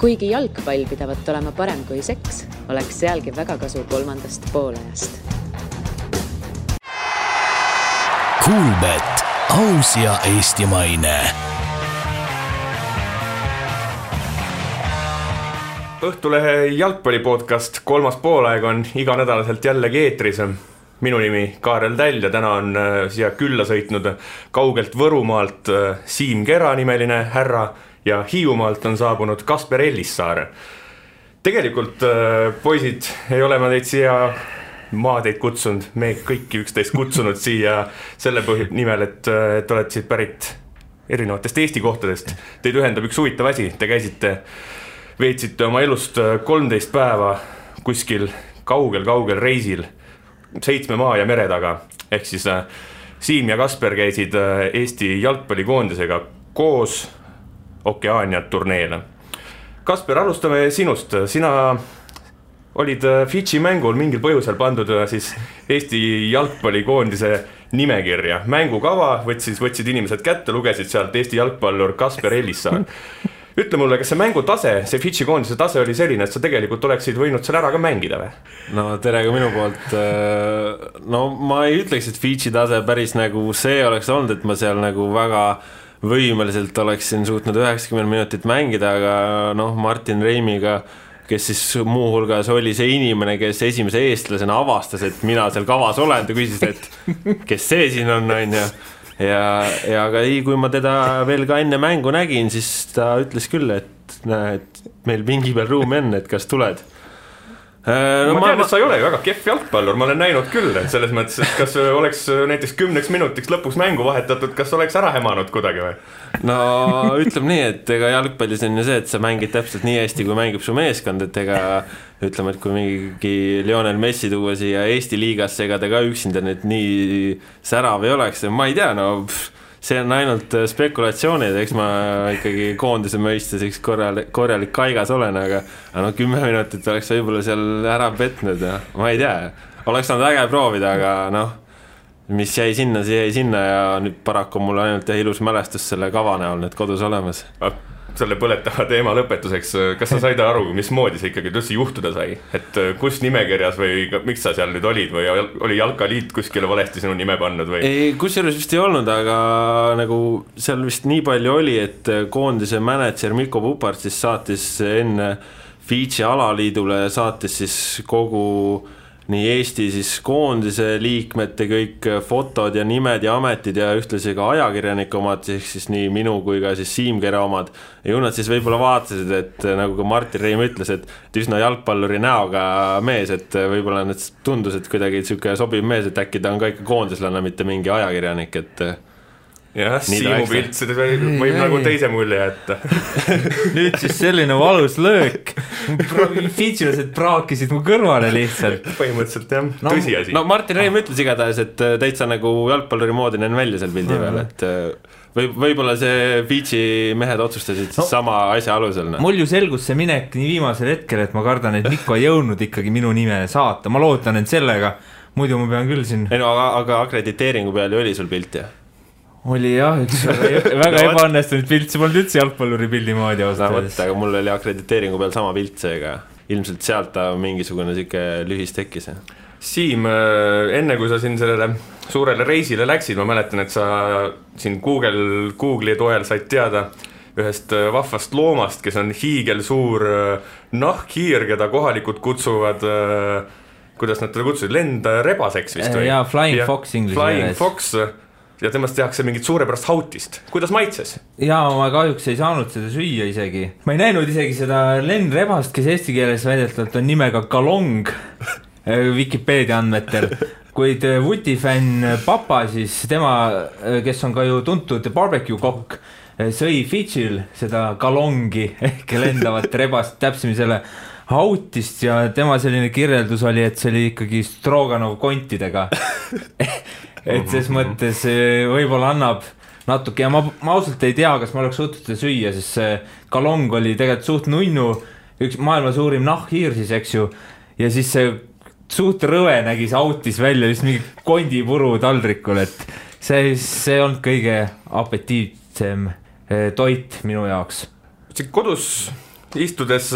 Kuigi jalgpall pidavat olema parem kui seks, oleks sealgi väga kasu 3. poolajast. Kuulbet, aus ja eestimaine. Õhtulehe jalgpallipodcast 3. poolaeg on iganädalaselt jällegi eetris. Minu nimi Kaarel Täll ja täna on siia külla sõitnud kaugelt Võrumaalt Siim Kera nimeline härra ja Hiiumaalt on saabunud Kasper Ellissaar. Tegelikult, poisid, ei ole ma teid siia teid kutsunud, me kõiki üksteist kutsunud siia selle nimel, et olete siit pärit erinevatest Eesti kohtadest. Teid ühendab üks huvitav asi, te veetsite oma elust 13 päeva kuskil kaugel reisil 7 maa ja mere taga. Ehk siis Siim ja Kasper käisid Eesti jalgpallikoondisega koos Okeaania turneele. Kasper, alustame sinust. Sina olid Fidži mängul mingil põhjusel pandud siis Eesti jalgpallikoondise nimekirja. Mängukava võtsid inimesed kätte, lugesid sealt Eesti jalgpallur Kasper Ellissaar. Ütle mulle, kas see mängutase, see Fidži koondise tase oli selline, et sa tegelikult oleksid võinud seal ära ka mängida või? No tere ka minu poolt. No ma ei ütleks, et Fidži tase päris nagu see oleks olnud, et ma seal nagu väga võimeliselt oleksin suutnud 90 minutit mängida, aga Martin Reimiga, kes siis muuhulgas oli see inimene, kes esimese eestlasena avastas, et mina seal kavas olen, ta küsis, et kes see siin on ja aga kui ma teda veel ka enne mängu nägin, siis ta ütles küll, et meil pingi peal ruumi on, et kas tuled. Ma tean, et sa ei ole väga kehv jalgpallur, ma olen näinud küll, et selles mõttes, et kas oleks näiteks 10 minutiks lõpuks mängu vahetatud, kas oleks ära hemanud kuidagi või? No ütleme nii, et ega jalgpallis on ju see, et sa mängid täpselt nii hästi, kui mängib su meeskond, et ega ütleme, et kui mingi Lionel Messi tuua siia Eesti liigasse, ega ta ka üksinda nüüd nii särav ei oleks, ma ei tea, see on ainult spekulatsioonid, eks ma ikkagi koondise mõistes üks korralik kaigas olen, aga 10 minutit oleks võib-olla seal ära petnud ja ma ei tea, oleks saanud äge proovida, aga mis jäi sinna, see jäi sinna ja nüüd paraku mul ainult ilus mälestus selle kava näol nüüd kodus olemas. Selle põletava teema lõpetuseks, kas sa said aru, mismoodi see ikkagi üldse juhtuda sai? Et kus nimekirjas või miks sa seal nüüd olid või oli Jalkaliit kuskile valesti sinu nime pannud või? Ei, kusjuures vist ei olnud, aga nagu seal vist nii palju oli, et koondise mänedžer Mikko Pupart siis saatis enne Fidži alaliidule saatis siis kogu nii Eesti siis koondise liikmete kõik fotod ja nimed ja ametid ja ühtlasi ka ajakirjanike omad, siis nii minu kui ka siis Siim Kera omad. Ja ju nad siis võib-olla vaatasid, et nagu ka Martin Reim ütles, et üsna jalgpalluri näoga mees, et võib-olla need tundus, et kuidagi selline sobiv mees, et äkki ta on ka ikka koondislane, mitte mingi ajakirjanik, et jah, Siimu pilt, seda võib nagu teise mulje jätta. Nüüd siis selline valus löök. Fidžilased praakisid mu kõrvale lihtsalt. Põhimõtteliselt jah, tõsiasi. No Martin Reim ütles igatahes, et täitsa nagu jalgpalluri moodi näen välja seal pildi peal, et võib-olla see Fidži mehed otsustasid sama asja alusel. Mul ju selgus see minek nii viimasel hetkel, et ma kardan, et Mikko ei jõudnud ikkagi minu nime saata. Ma loodan, et sellega, muidu ma pean küll siin... Ei no, aga akrediteeringu peal ju oli sul pilt, jah? Oli jah, üks väga ebaõnnestunud pilt, see polnud üldse jalgpalluri pildi moodi ausalt. Aga mul oli akrediteeringu peal sama pilt seega, ilmselt sealt ta mingisugune siuke lühis tekkis. Siim, enne kui sa siin sellele suurele reisile läksid, ma mäletan, et sa siin Google'i toel said teada ühest vahvast loomast, kes on hiigelsuur nahkhiir, keda kohalikud kutsuvad, kuidas nad teda kutsusid, lendrebaseks vist või? Jaa, Flying Fox inglise. Flying Fox ja temast tehakse mingit suurepärast hautist. Kuidas maitses? Jaa, ma kahjuks ei saanud seda süüa isegi. Ma ei näinud isegi seda lendrebast, kes eesti keeles väidetavalt on nimega Kalong Wikipedia andmetel. Kuid Vuti-fänn papa, siis tema, kes on ka ju tuntud barbecue kokk, sõi Fidžil seda Kalongi ehk lendavat rebast täpsemi selle hautist ja tema selline kirjeldus oli, et see oli ikkagi Stroganov kontidega. Et ses mõttes võib-olla annab natuke ja ma ausalt ei tea, kas ma oleks suutnud seda süüa, sest see Kalong oli tegelikult suht nunnu, üks maailma suurim nahkhiir siis, eks ju, ja siis see suht rõve nägi see autis välja just mingi kondipuru taldrikul, et see on kõige apetiitsem toit minu jaoks. Kodus istudes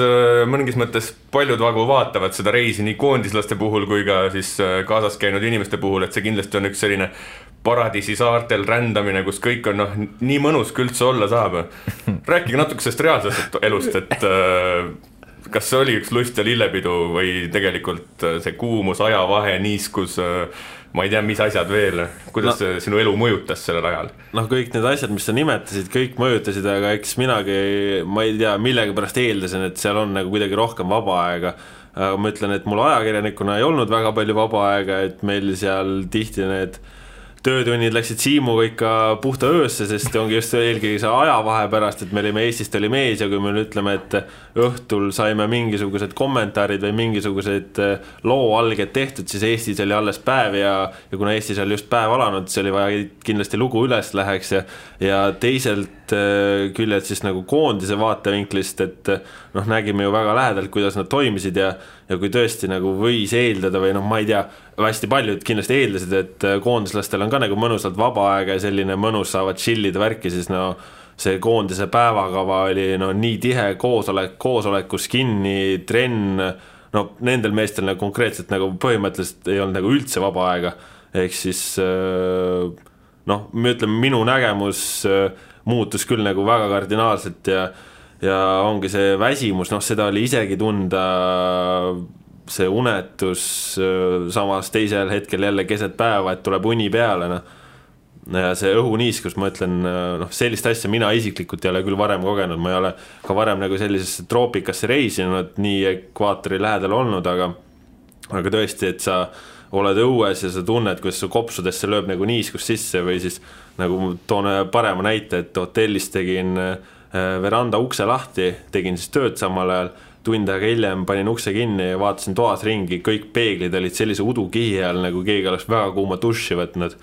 mõningis mõttes paljud vagu vaatavad seda reisi nii koondislaste puhul kui ka siis kaasas käinud inimeste puhul, et see kindlasti on üks selline paradiisi saartel rändamine, kus kõik on nii mõnus kui üldse olla saab. Rääkige natuke sellest reaalsest elust, et kas see oli üks lust ja lillepidu või tegelikult see kuumus, ajavahe, niiskus, ma ei tea, mis asjad veel, kuidas sinu elu mõjutas sellel ajal? Kõik need asjad, mis sa nimetasid, kõik mõjutasid, aga eks minagi, ma ei tea, millega pärast eeldasin, et seal on nagu kuidagi rohkem vaba aega. Aga ma ütlen, et mul ajakirjanikuna ei olnud väga palju vaba aega, et meil seal tihti need töötunnid läksid Siimuga ikka puhta öösse, sest ongi just eelkõige see ajavahe pärast, et me olime Eestist oli mees ja kui me ütleme, et õhtul saime mingisugused kommentaarid või mingisugused looalged tehtud, siis Eestis oli alles päev ja kuna Eestis oli just päev alanud, see oli vaja kindlasti lugu üles läheks ja teiselt küljelt siis nagu koondise vaatevinklist, et nägime ju väga lähedalt, kuidas nad toimisid ja kui tõesti nagu võis eeldada või ma ei tea, hästi paljud kindlasti eeldasid, et koondislastel on ka nagu mõnusalt vaba aega ja selline mõnus saavad chillida värki, siis see koondise päevakava oli nii tihe koosolekus kinni, trenn, nendel meestel nagu konkreetselt nagu põhimõtteliselt ei olnud nagu üldse vaba aega, ehk siis me ütleme, minu nägemus muutus küll nagu väga kardinaalselt ja ongi see väsimus, seda oli isegi tunda, see unetus samas teisel hetkel jälle keset päeva, et tuleb uni peale, ja see õhuniiskus, ma ütlen, sellist asja mina isiklikult ei ole küll varem kogenud, ma ei ole ka varem nagu sellisesse troopikasse reisinud, nii ekvaatori lähedal olnud, aga tõesti, et sa oled õues ja sa tunned, kuidas su kopsudesse lööb nagu niiskus sisse või siis nagu toon parema näite, et hotellis tegin veranda ukse lahti, tegin siis tööd samal ajal, tund aega hiljem panin ukse kinni ja vaatasin toas ringi, kõik peeglid olid sellise udukihi all, nagu keegi oleks väga kuuma duši võtnud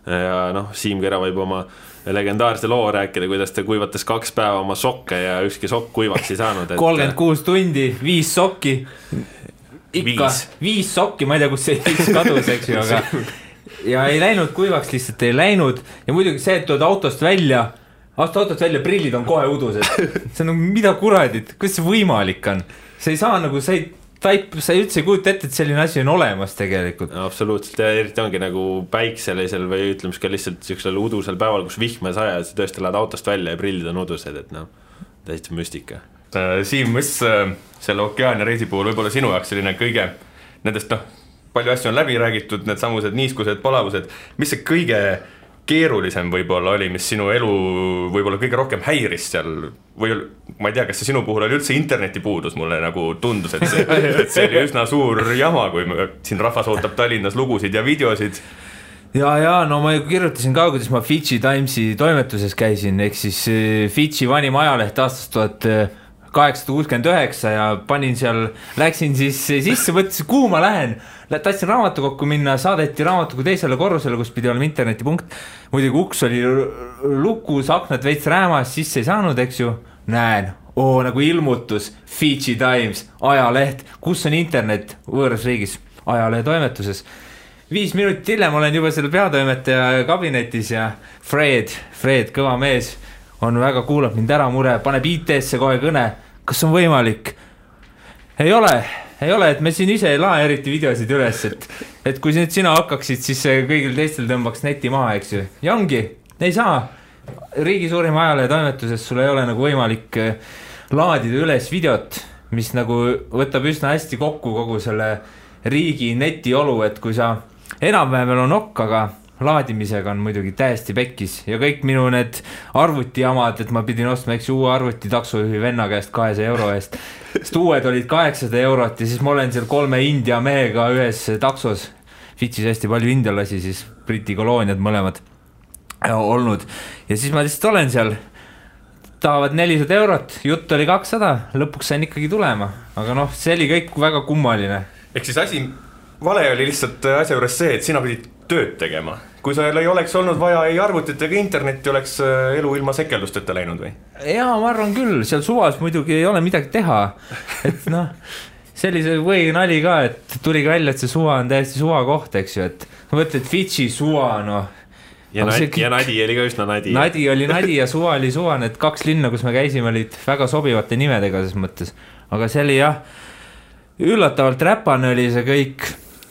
ja Siim Kera võib oma legendaarse loo rääkida, kuidas ta kuivatas 2 päeva oma sokke ja ükski sokk kuivaks ei saanud 36 tundi, 5 sokki ikka, 5 sokki, ma ei tea, kus see 5 kadus, eks ju, aga ja ei läinud kuivaks, lihtsalt ei läinud ja muidugi see, et tood autost välja, prillid on kohe udused. See on mida kuradit, kuidas see võimalik on? See ei saa nagu, sa ei üldse kujuta ette, et selline asi on olemas tegelikult. Absoluutselt, ja eriti ongi nagu päikselisel või ütleme ka lihtsalt sellisel udusel päeval, kus vihme saja, sa tõesti lähed autost välja ja prillid on udused, et täiesti müstika. Siim, mis selle Okeania reisi puhul võib-olla sinu jaoks selline kõige nendest, palju asju on läbi räägitud, need samused niiskused, palavused, mis see kõige keerulisem võib-olla oli, mis sinu elu võib-olla kõige rohkem häiris seal või ma ei tea, kas see sinu puhul oli üldse interneti puudus, mulle nagu tundus, et see oli üsna suur jama, kui siin rahvas ootab Tallinnas lugusid ja videosid. Ja ma kirjutasin ka, kuidas ma Fidži Timesi toimetuses käisin, ehk siis Fidži vanim ajaleht aastast 1869 ja panin seal, läksin siis sisse, mõtlesin, kuhu ma lähen, tahtsin raamatukokku minna, saadeti raamatukogu teisele korrusele, kus pidi olema internetipunkt, muidugi uks oli lukus, aknad veits räämas, sisse ei saanud, eks ju, näen, nagu ilmutus, Fidži Times, ajaleht, kus on internet võõras riigis, ajalehe toimetuses. 5 minutit hiljem olen juba selle peatoimetaja kabinetis ja Fred, kõva mees, on väga kuulab mind ära mure, paneb IT-sse kohe kõne, kas on võimalik? Ei ole, et me siin ise ei lae eriti videosid üles, et kui nüüd sina hakkaksid, siis kõigil teistel tõmbaks neti maha, eks ju. Ja ongi, ei saa. Riigi suurim ajalehe toimetuses sul ei ole nagu võimalik laadida üles videot, mis nagu võtab üsna hästi kokku kogu selle riigi netiolu, et kui sa enam-vähem on okk, aga laadimisega on muidugi täiesti pekkis ja kõik minu need arvutijamad, et ma pidin ostma uue arvuti taksojuhi venna käest 200 euro eest, sest uued olid 800 eurot ja siis ma olen seal 3 India mehega ühes taksos, Fidžis hästi palju indialasi, siis Briti kolooniad mõlemad olnud ja siis ma lihtsalt olen seal, tahavad 400 eurot, jutt oli 200, lõpuks sain ikkagi tulema, aga see oli kõik väga kummaline. Ehk siis vale oli lihtsalt asja juures see, et sina pidid tööd tegema. Kui sa ei oleks olnud vaja ei arvutit ega internetti, oleks elu ilma sekeldusteta läinud või? Jaa, ma arvan küll, seal suvas muidugi ei ole midagi teha. Et sellise või nali ka, et tuli välja, et see suva on täiesti suva koht, eks ju, et mõtled Fidži suva, ja Nadi oli ka üsna nadi. Nadi oli nadi ja suva oli suva, need 2 linna, kus me käisime, olid väga sobivate nimedega ses mõttes. Aga see oli jah, üllatavalt räpane oli see kõik.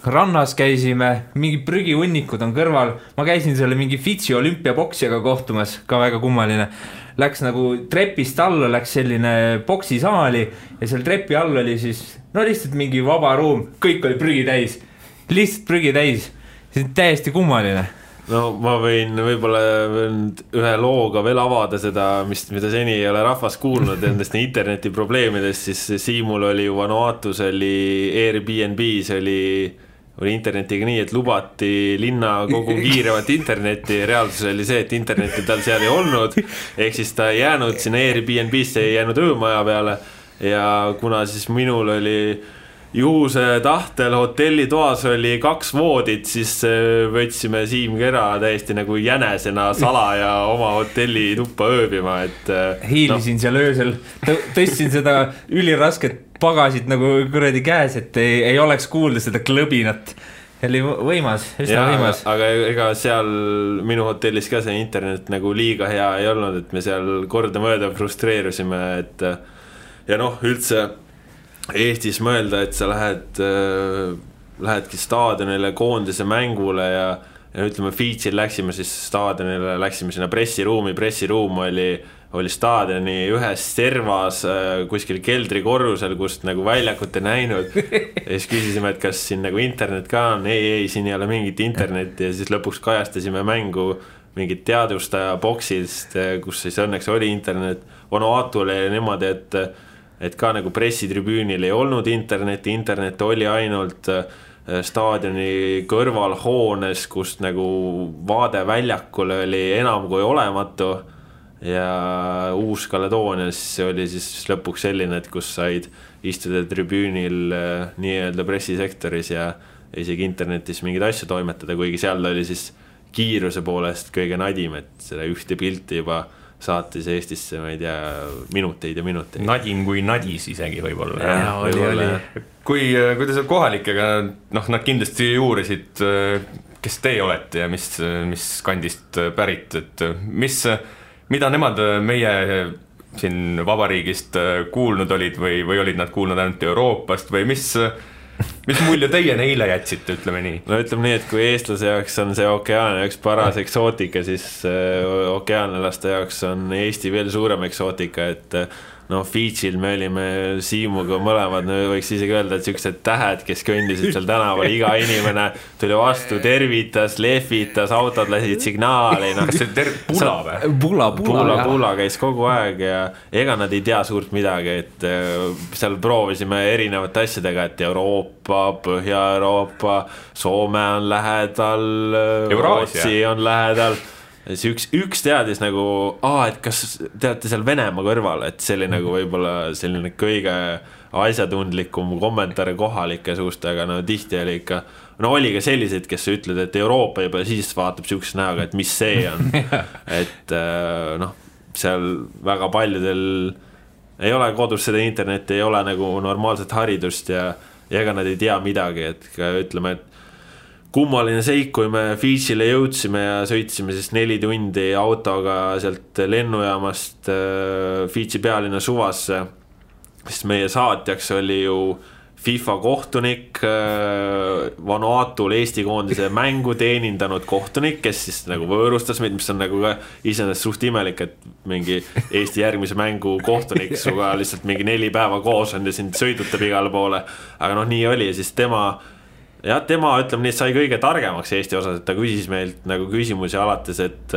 Rannas käisime, mingi prügihunnikud on kõrval. Ma käisin selle mingi Fitsi olümpiapoksijaga kohtumas, ka väga kummaline. Läks nagu trepist alla, läks selline poksisaali ja seal trepi all oli siis, no lihtsalt mingi vaba ruum, kõik oli prügi täis. Lihtsalt prügi täis. See on täiesti kummaline. No ma võin võib-olla ühe looga veel avada seda, mida seni ei ole rahvas kuulnud endast interneti probleemidest, siis Siimul oli ju Vanuatus, oli Airbnb's, oli internetiga nii, et lubati linna kogu kiirevat internetti. Reaalsus oli see, et internetti tal seal ei olnud, ehk siis ta ei jäänud sinna Airbnb'sse, ei jäänud öömaja peale ja kuna siis minul oli juhuse tahtel hotellitoas oli 2 voodit, siis võtsime Siim Kera täiesti nagu jänesena salaja oma hotelli tuppa ööbima, et hiilisin seal öösel, tõstsin seda ülirasket pagasid nagu kuradi käes, et ei oleks kuulda seda klõbinat. Oli võimas, üsna võimas. Aga ega seal minu hotellis ka see internet nagu liiga hea ei olnud, et me seal kordamööda frustreerusime, et ja noh, üldse Eestis mõelda, et sa lähedki staadionile koondise mängule ja ütleme Fitsil läksime siis staadionile, läksime sinna pressiruumi, pressiruum oli staadioni ühes servas kuskil keldrikorrusel, kust nagu väljakut ei näinud ja siis küsisime, et kas siin nagu internet ka on, ei, siin ei ole mingit internetti ja siis lõpuks kajastasime mängu mingit teadustaja boksist, kus siis õnneks oli internet. Vanuatu oli niimoodi, et ka nagu pressitribüünil ei olnud internet oli ainult staadioni kõrvalhoones, kust nagu vaade väljakule oli enam kui olematu ja Uus-Kaledoonias oli siis lõpuks selline, et kus said istuda tribüünil nii-öelda pressisektoris ja isegi internetis mingeid asju toimetada, kuigi seal oli siis kiiruse poolest kõige nadim, et seda ühte pilti juba saatis Eestisse, ma ei tea, minuteid ja minuteid. Nadim kui nadis isegi võib-olla. Oli. Kui te seal kohalikega, noh, nad kindlasti uurisid, kes te olete ja mis kandist pärit, et mida nemad meie siin vabariigist kuulnud olid või olid nad kuulnud ainult Euroopast või mis mulje teie neile jätsite, ütleme nii? No ütleme nii, et kui eestlase jaoks on see Okeaania üks paras eksootika, siis okeaanlaste jaoks on Eesti veel suurem eksootika, et no Fitsil me olime Siimuga mõlemad, võiks isegi öelda, et sellised tähed, kes kõndisid seal tänaval, iga inimene tuli vastu, tervitas, lehvitas, autod lasid signaali. Kas see Pula või? Pula käis kogu aeg ja ega nad ei tea suurt midagi, et seal proovisime erinevate asjadega, et Euroopa, Põhja-Euroopa, Soome on lähedal, Rootsi on lähedal. Üks teadis nagu, et kas te olete seal Venemaa kõrval, et see oli nagu võib-olla selline kõige asjatundlikum kommentaare kohalike suust, aga no tihti oli ikka, no oli ka sellised, kes ütled, et Euroopa juba siis vaatab siukse näoga, et mis see on. Et noh, seal väga paljudel ei ole kodus seda internetti, ei ole nagu normaalset haridust ja ega nad ei tea midagi, et ütleme, et kummaline seik, kui me Fitchile jõudsime ja sõitsime siis 4 tundi autoga sealt lennujaamast Fitchi pealinna suvasse, sest meie saatjaks oli ju FIFA kohtunik, Vanuatul Eesti koondise mängu teenindanud kohtunik, kes siis nagu võõrustas meid, mis on nagu ka iseenesest suht imelik, et mingi Eesti järgmise mängu kohtunik suga lihtsalt mingi 4 päeva koos on ja sind sõidutab igale poole, aga noh, nii oli ja siis tema, ütleme nii, sai kõige targemaks Eesti osas, et ta küsis meilt nagu küsimusi alates, et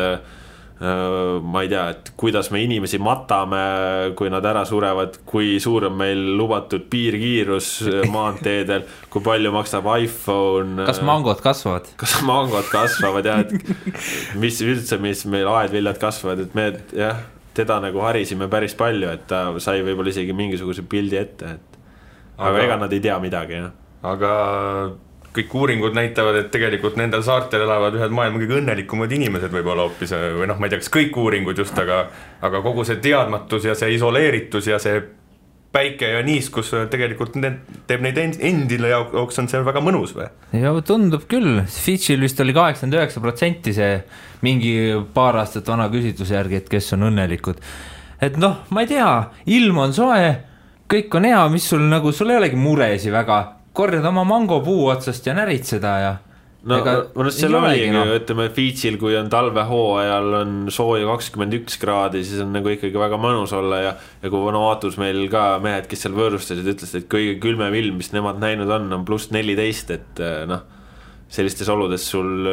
ma ei tea, et kuidas me inimesi matame, kui nad ära surevad, kui suur on meil lubatud piirkiirus maanteedel, kui palju maksab iPhone. Kas mangod kasvavad? Kas mangod kasvavad, jah, et mis üldse, mis meil aedviljad kasvavad, et me teda nagu harisime päris palju, et ta sai võib-olla isegi mingisuguse pildi ette, aga ega nad ei tea midagi, jah. Aga kõik uuringud näitavad, et tegelikult nendel saartel elavad ühed maailma kõige õnnelikumad inimesed võib-olla hoopis, või noh, ma ei tea, kas kõik uuringud just, aga kogu see teadmatus ja see isoleeritus ja see päike ja niiskus tegelikult teeb neid endile jaoks on see väga mõnus või? Ja tundub küll, Fitchil vist oli 89% see mingi paar aastat vana küsitluse järgi, et kes on õnnelikud. Et noh, ma ei tea, ilm on soe, kõik on hea, mis sul nagu, sul ei olegi muresi väga, korjad oma mangopuu otsast ja närid seda ja no seal oligi, ütleme Fitchil, kui on talvehooajal on sooja 21 kraadi, siis on nagu ikkagi väga mõnus olla ja kui Vanuatus meil ka mehed, kes seal võõrustasid, ütlesid, et kõige külmem ilm, mis nemad näinud on pluss 14, et noh, sellistes oludes sul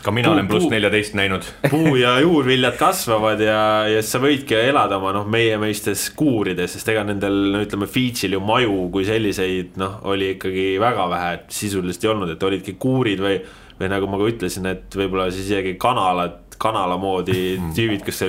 ka mina olen pluss 14 näinud. Puu ja juurviljad kasvavad ja sa võidki elada oma meie meistes kuurides, sest ega nendel, ütleme, Fitchil ju maju kui selliseid, oli ikkagi väga vähe, et sisuliselt ei olnud, et olidki kuurid või nagu ma ka ütlesin, et võibolla siis isegi kanala moodi tüüvid, kus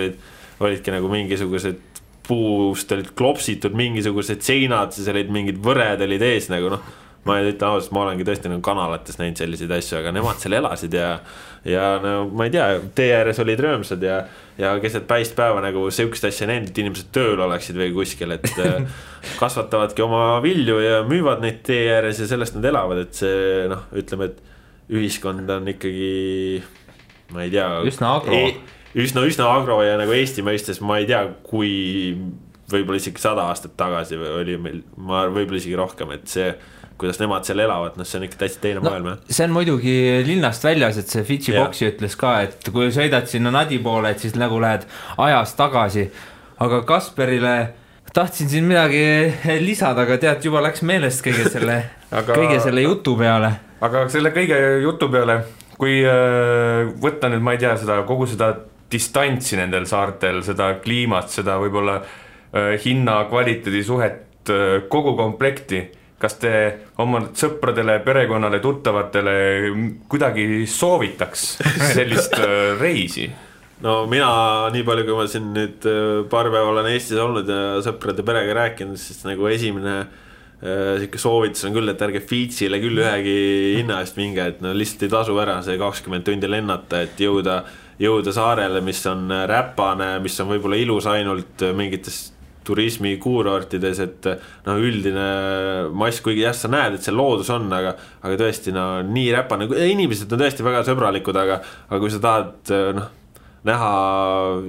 olidki nagu mingisugused puust olid klopsitud mingisugused seinad, siis olid mingid võred olid ees nagu ma ei ütle ausalt, ma olengi tõesti nagu kanalates näinud selliseid asju, aga nemad seal elasid ja no, ma ei tea, tee ääres olid röömsad ja keset päist päeva nagu sihukest asja näinud, et inimesed tööl oleksid või kuskil, et kasvatavadki oma vilju ja müüvad neid tee ääres ja sellest nad elavad, et see ütleme, et ühiskond on ikkagi, ma ei tea, üsna agro ja nagu Eesti mõistes ma ei tea, kui võib-olla isegi 100 aastat tagasi oli meil, võib-olla isegi rohkem, et see kuidas nemad seal elavad, see on ikka täitsa teine maailm. See on muidugi linnast väljas, et see Fitchi boksi ütles ka, et kui sõidad sinna Nadi poole, et siis nagu lähed ajas tagasi. Aga Kasperile tahtsin siin midagi lisada, aga tead, juba läks meelest kõige selle jutu peale. Aga selle kõige jutu peale, kui võtta nüüd, ma ei tea, kogu seda distantsi nendel saartel, seda kliimat, seda võib-olla hinna kvaliteedi suhet, kogu komplekti, kas te oma sõpradele, perekonnale, tuttavatele kuidagi soovitaks sellist reisi? No mina, nii palju kui ma siin nüüd paar päeva olen Eestis olnud ja sõprade perega rääkinud, siis nagu esimene soovitus on küll, et ärge Fitchile küll ühegi hinna eest minge, et lihtsalt ei tasu ära see 20 tundi lennata, et jõuda saarele, mis on räpane, mis on võib-olla ilus ainult mingites turismi kuurortides, et üldine mass, kuigi jah, sa näed, et see loodus on, aga tõesti nii räpane, inimesed on tõesti väga sõbralikud, aga kui sa tahad näha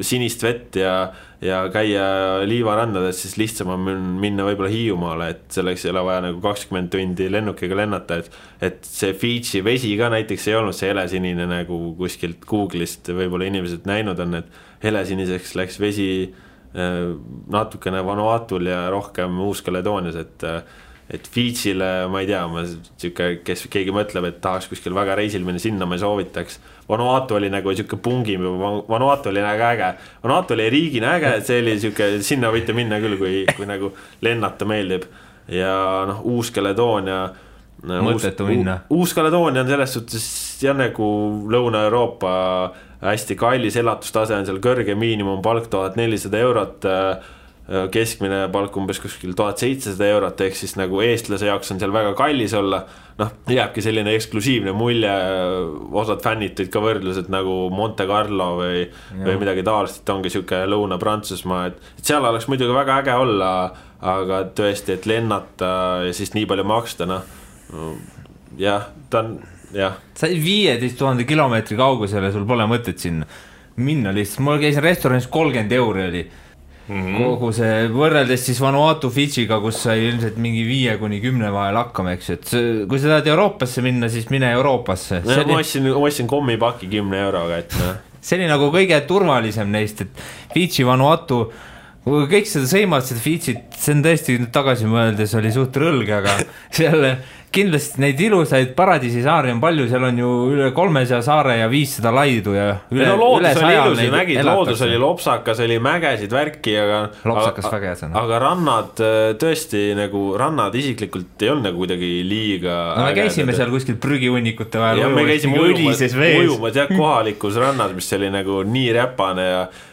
sinist vett ja käia liivarandades, siis lihtsam on minna võib-olla Hiiumaale, et selleks ei ole vaja nagu 20 tundi lennukiga lennata, et see Fitchi vesi ka näiteks ei olnud see helesinine nagu kuskilt Google'ist võib-olla inimesed näinud on, et helesiniseks läks vesi natukene Vanuatul ja rohkem Uus-Kaledoonias, et Fitchile, ma ei tea, kes keegi mõtleb, et tahaks kuskil väga reisil minna, sinna ma ei soovitaks. Vanuatu oli nagu siuke pungim, Vanuatu oli nagu äge, Vanuatu oli riigina äge, et see oli siuke, sinna võite minna küll, kui nagu lennata meeldib ja Uus-Kaledoonia mõttetu minna. Uus-Kaledoonia on selles suhtes jah nagu Lõuna-Euroopa hästi kallis elatustase on seal kõrge, miinimumpalk 1400 eurot, keskmine palk umbes kuskil 1700 eurot, ehk siis nagu eestlase jaoks on seal väga kallis olla, jääbki selline eksklusiivne mulje, osad fännid tõid ka võrdlused nagu Monte Carlo või midagi taolist, et ongi siuke Lõuna-Prantsusmaa, et seal oleks muidugi väga äge olla, aga tõesti, et lennata ja siis nii palju maksta, jah, ta on sa 15 000 kilomeetri kaugusele, sul pole mõtet sinna minna lihtsalt, mul käisin restoranis 30 euro oli kogu see, võrreldes siis Vanuatu Fitchiga, kus sai ilmselt mingi 5-10 vahel hakkama, eks, et kui sa tahad Euroopasse minna, siis mine Euroopasse. Ma ostsin kommipaki 10 euroga, et see oli nagu kõige turvalisem neist, et Fitchi, Vanuatu, kõik seda sõimavad seda Fitchit, see on tõesti tagasi mõeldes oli suht rõlge, aga seal kindlasti neid ilusaid paradiisisaari on palju, seal on ju üle 300 saare ja 500 laidu ja üle 100 nägid, loodus oli lopsakas, oli mägesid värki, aga rannad tõesti nagu rannad isiklikult ei olnud nagu kuidagi liiga me käisime seal kuskil prügihunnikute vahel ja me käisime ujumas kohalikus rannas, mis oli nagu nii räpane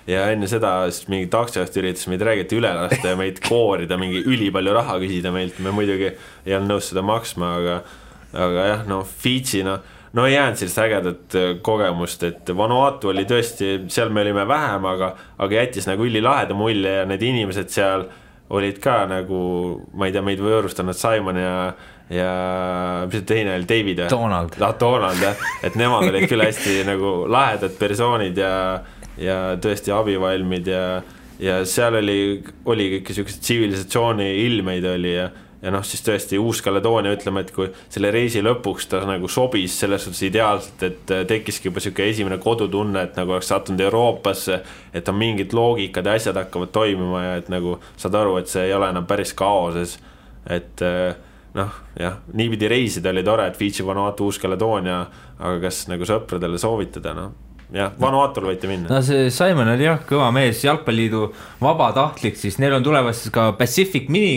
ja enne seda mingi taksijast üritas meid räägiti üle lasta ja meid koorida, mingi ülipalju raha küsida meilt, me muidugi ei olnud nõus seda maksma, aga jah, Fitchi, ei jäänud sellist ägedat kogemust, et Vanuatu oli tõesti, seal me olime vähem, aga jättis nagu ülilaheda mulje ja need inimesed seal olid ka nagu, ma ei tea, meid võõrustanud Simon ja mis see teine oli, David Donald. Donald, jah, et nemad olid küll hästi nagu lahedad persoonid ja tõesti abivalmid ja seal oli kõik sellised tsivilisatsiooni ilmeid oli ja noh, siis tõesti Uus-Kaledoonia, ütleme, et kui selle reisi lõpuks ta nagu sobis selles suhtes ideaalselt, et tekkiski juba selline esimene kodutunne, et nagu oleks sattunud Euroopasse, et on mingid loogikad ja asjad hakkavad toimima ja et nagu saad aru, et see ei ole enam päris kaoses, et noh, jah, niipidi reisida oli tore, et Fidži, Vanuatu, Uus-Kaledoonia, aga kas nagu sõpradele soovitada, noh, jah, Vanuatul võite minna. No see Simon oli jah, kõva mees, Jalgpalliliidu vabatahtlik, siis neil on tulevases ka Pacific Mini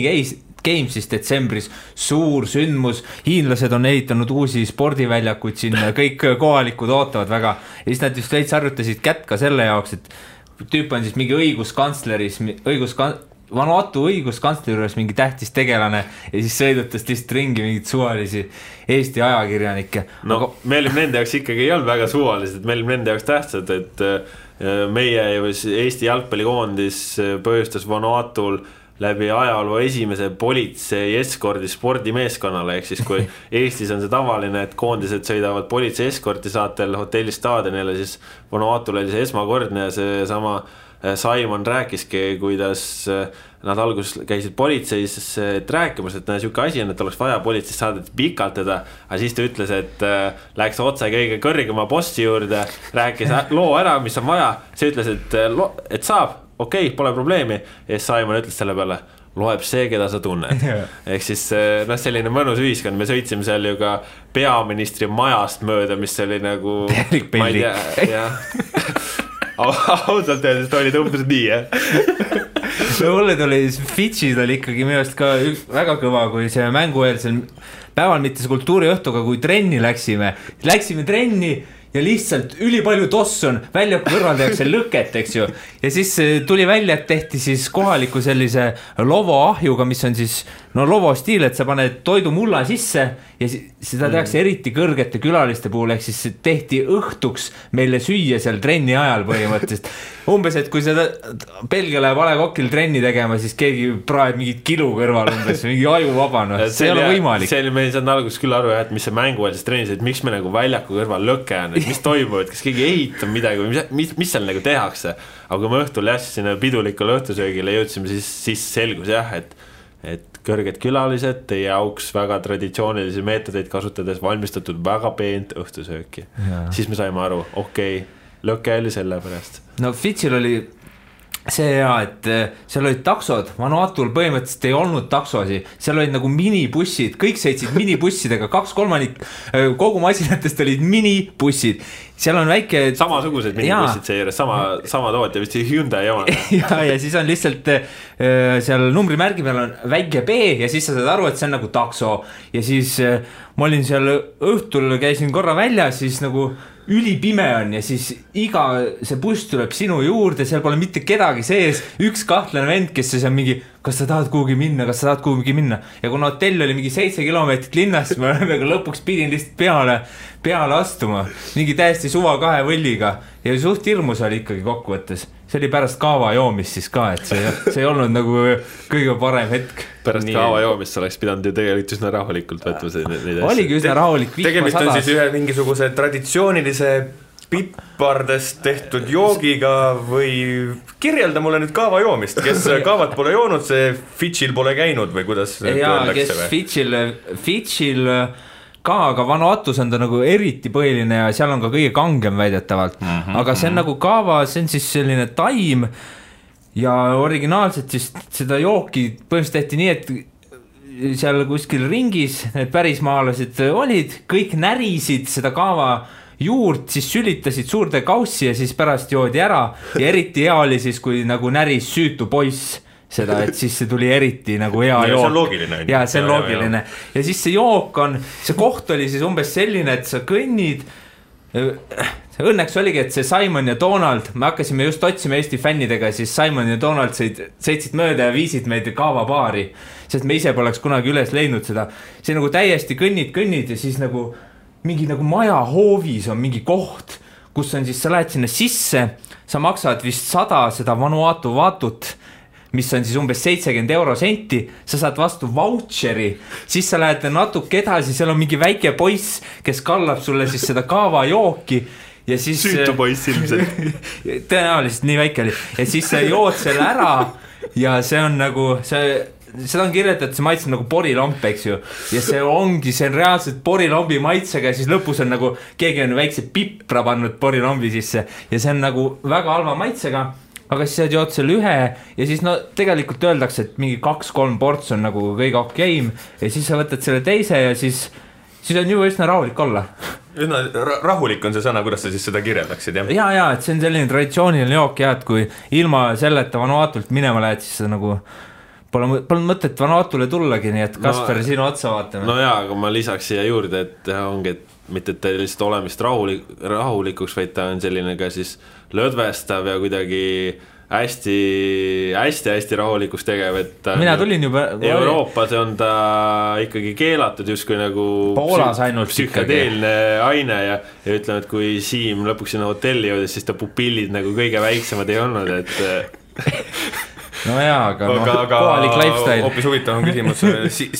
Games siis detsembris, suur sündmus, hiinlased on ehitanud uusi spordiväljakuid siin, kõik kohalikud ootavad väga ja siis nad just veits harjutasid kätt ka selle jaoks, et tüüp on siis mingi Vanuatu õiguskantsleri juures mingi tähtis tegelane ja siis sõidutas lihtsalt ringi mingid suvalisi Eesti ajakirjanikke. No aga me olime nende jaoks ikkagi ei olnud väga suvalised, me olime nende jaoks tähtsad, et meie Eesti jalgpallikoondis põhjustas Vanuatul läbi ajaloo esimese politsei eskordi spordimeeskonnale, ehk siis kui Eestis on see tavaline, et koondised sõidavad politsei eskorti saatel hotellistaadionile, siis Vanuatul oli see esmakordne ja see sama Simon rääkiski, kuidas nad alguses käisid politseis rääkimas, et siuke asi on, et oleks vaja politseis saadeti pikalt teda, aga siis ta ütles, et läks otse kõige kõrgema bossi juurde, rääkis loo ära, mis on vaja, see ütles, et saab, okei, pole probleemi ja Simon ütles selle peale, loeb see, keda sa tunned. Ehk siis selline mõnus ühiskond, me sõitsime seal ju ka peaministri majast mööda, mis oli nagu ma ei tea, jah ausalt öeldes ta oli umbes nii, no mulle tuli Fidžis oli ikkagi minu arust ka väga kõva, kui see mängueelsel päeval mitte see kultuuriõhtuga, kui trenni läksime trenni ja lihtsalt ülipalju tossu on, välja kõrval tehakse lõket, eks ju, ja siis tuli välja, et tehti siis kohaliku sellise lovo ahjuga, mis on siis lovo stiil, et sa paned toidu mulla sisse ja seda tehakse eriti kõrgete külaliste puhul, ehk siis tehti õhtuks meile süüa seal trenni ajal põhimõtteliselt. Umbes, et kui seda Belgia läheb A Le Coqil trenni tegema, siis keegi praeb mingit kilu kõrval umbes, mingi aju vabanud, see ei ole võimalik. See oli meil saanud alguses küll aru, et mis see mänguvälises trennis, et miks me nagu väljaku kõrval lõke on, et mis toimub, et kas keegi ehitab midagi või mis seal nagu tehakse. Aga kui me õhtul sinna pidulikule õhtusöögile jõudsime, siis selgus jah, et kõrged külalised teie auks väga traditsioonilisi meetodeid kasutades valmistatud väga peent õhtusööki. Siis me saime aru, okei, lõke oli selle pärast. No Fidžil oli see hea, et seal olid taksod, Vanuatul põhimõtteliselt ei olnud taksosi, seal olid nagu minibussid, kõik sõitsid minibussidega, 2/3 kogu masinatest olid minibussid, seal on väike samasugused minibussid seejuures, sama tootja, vist Hyundai oma. ja siis on lihtsalt seal numbrimärgi peal on väike B ja siis sa saad aru, et see on nagu takso ja siis ma olin seal õhtul, käisin korra välja, siis nagu ülipime on ja siis iga see buss tuleb sinu juurde, seal pole mitte kedagi sees, üks kahtlane vend, kes siis on mingi, kas sa tahad kuhugi minna ja kuna hotell oli mingi 7 kilomeetrit linnast, ma lõpuks pidin lihtsalt peale astuma, mingi täiesti suva 2 võlliga ja suht hirmus oli ikkagi kokkuvõttes. See oli pärast kaava joomist siis ka, et see ei olnud nagu kõige parem hetk. Pärast kaava joomist sa oleks pidanud ju tegelikult üsna rahulikult võtma. Oligi üsna rahulik. Tegemist on siis ühe mingisuguse traditsioonilise pipardest tehtud joogiga või kirjelda mulle nüüd kaava joomist, kes kaavat pole joonud, see Fidžil pole käinud või kuidas öeldakse? Kes Fidžil ka, aga Vanuatus on ta nagu eriti põhiline ja seal on ka kõige kangem väidetavalt, aga see on nagu kaava, see on siis selline taim ja originaalselt siis seda jooki põhimõtteliselt tehti nii, et seal kuskil ringis need pärismaalased olid, kõik närisid seda kaava juurt, siis sülitasid suurde kaussi ja siis pärast joodi ära ja eriti hea oli siis, kui nagu näris süütu poiss seda, et siis see tuli eriti nagu hea jook. See on loogiline. Ja see on loogiline. Ja siis see jook on, see koht oli siis umbes selline, et sa kõnnid, õnneks oligi, et see Simon ja Donald, me hakkasime just otsima Eesti fännidega, siis Simon ja Donald sõitsid mööda ja viisid meid kaavabaari, sest me ise poleks kunagi üles leidnud seda. See nagu täiesti kõnnid ja siis nagu mingi nagu maja hoovis on mingi koht, kus on siis, sa lähed sinna sisse, sa maksad vist 100 seda Vanuatu vaatut, mis on siis umbes 70 eurosenti, sa saad vastu vautšeri, siis sa lähed natuke edasi, seal on mingi väike poiss, kes kallab sulle siis seda kaavajooki ja siis süütu poiss ilmselt. Tõenäoliselt nii väike oli ja siis sa jood selle ära ja see on nagu seda on kirjeldatud, see maitseb nagu porilomp, eks ju, ja see on reaalselt porilombi maitsega ja siis lõpus on nagu keegi on väikse pipra pannud porilombi sisse ja see on nagu väga halva maitsega. Aga siis sa jood selle ühe ja siis no tegelikult öeldakse, et mingi 2-3 ports on nagu kõige okeim ja siis sa võtad selle teise ja siis on juba üsna rahulik olla. Rahulik on see sõna, kuidas sa siis seda kirjeldaksid, jah? Ja, et see on selline traditsiooniline jook ja et kui ilma selleta Vanuatult minema lähed, siis sa nagu pole mõtet Vanuatule tullagi, nii et Kasper, sinu otsa vaatame. No jaa, aga ma lisaks siia juurde, et ongi, et mitte et ta lihtsalt olemist rahulikuks, vaid ta on selline ka siis lõdvestav ja kuidagi hästi rahulikuks tegev, et mina tulin juba Euroopas on ta ikkagi keelatud justkui nagu Poolas ainult psühhedeelne aine ja ütleme, et kui Siim lõpuks sinna hotelli jõudes, siis ta pupillid nagu kõige väiksemad ei olnud, et no jaa, aga kohalik lifestyle. Hoopis huvitav on küsimus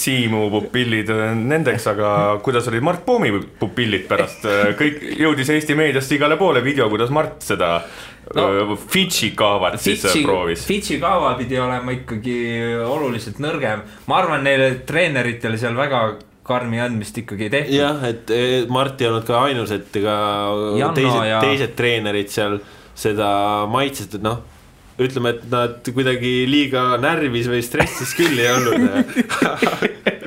Siimu pupillid nendeks, aga kuidas olid Mart Poomi pupillid pärast? Kõik jõudis Eesti meediast igale poole video, kuidas Mart seda Fidži kaavat siis proovis. Fidži kaava pidi olema ikkagi oluliselt nõrgem. Ma arvan, neile treeneritele seal väga karmi andmist ikkagi tehtud. Jah, et Mart ei olnud ka ainus, et ka teised treenerid seal seda maitset, et ütleme, et nad kuidagi liiga närvis või stressis küll ei olnud.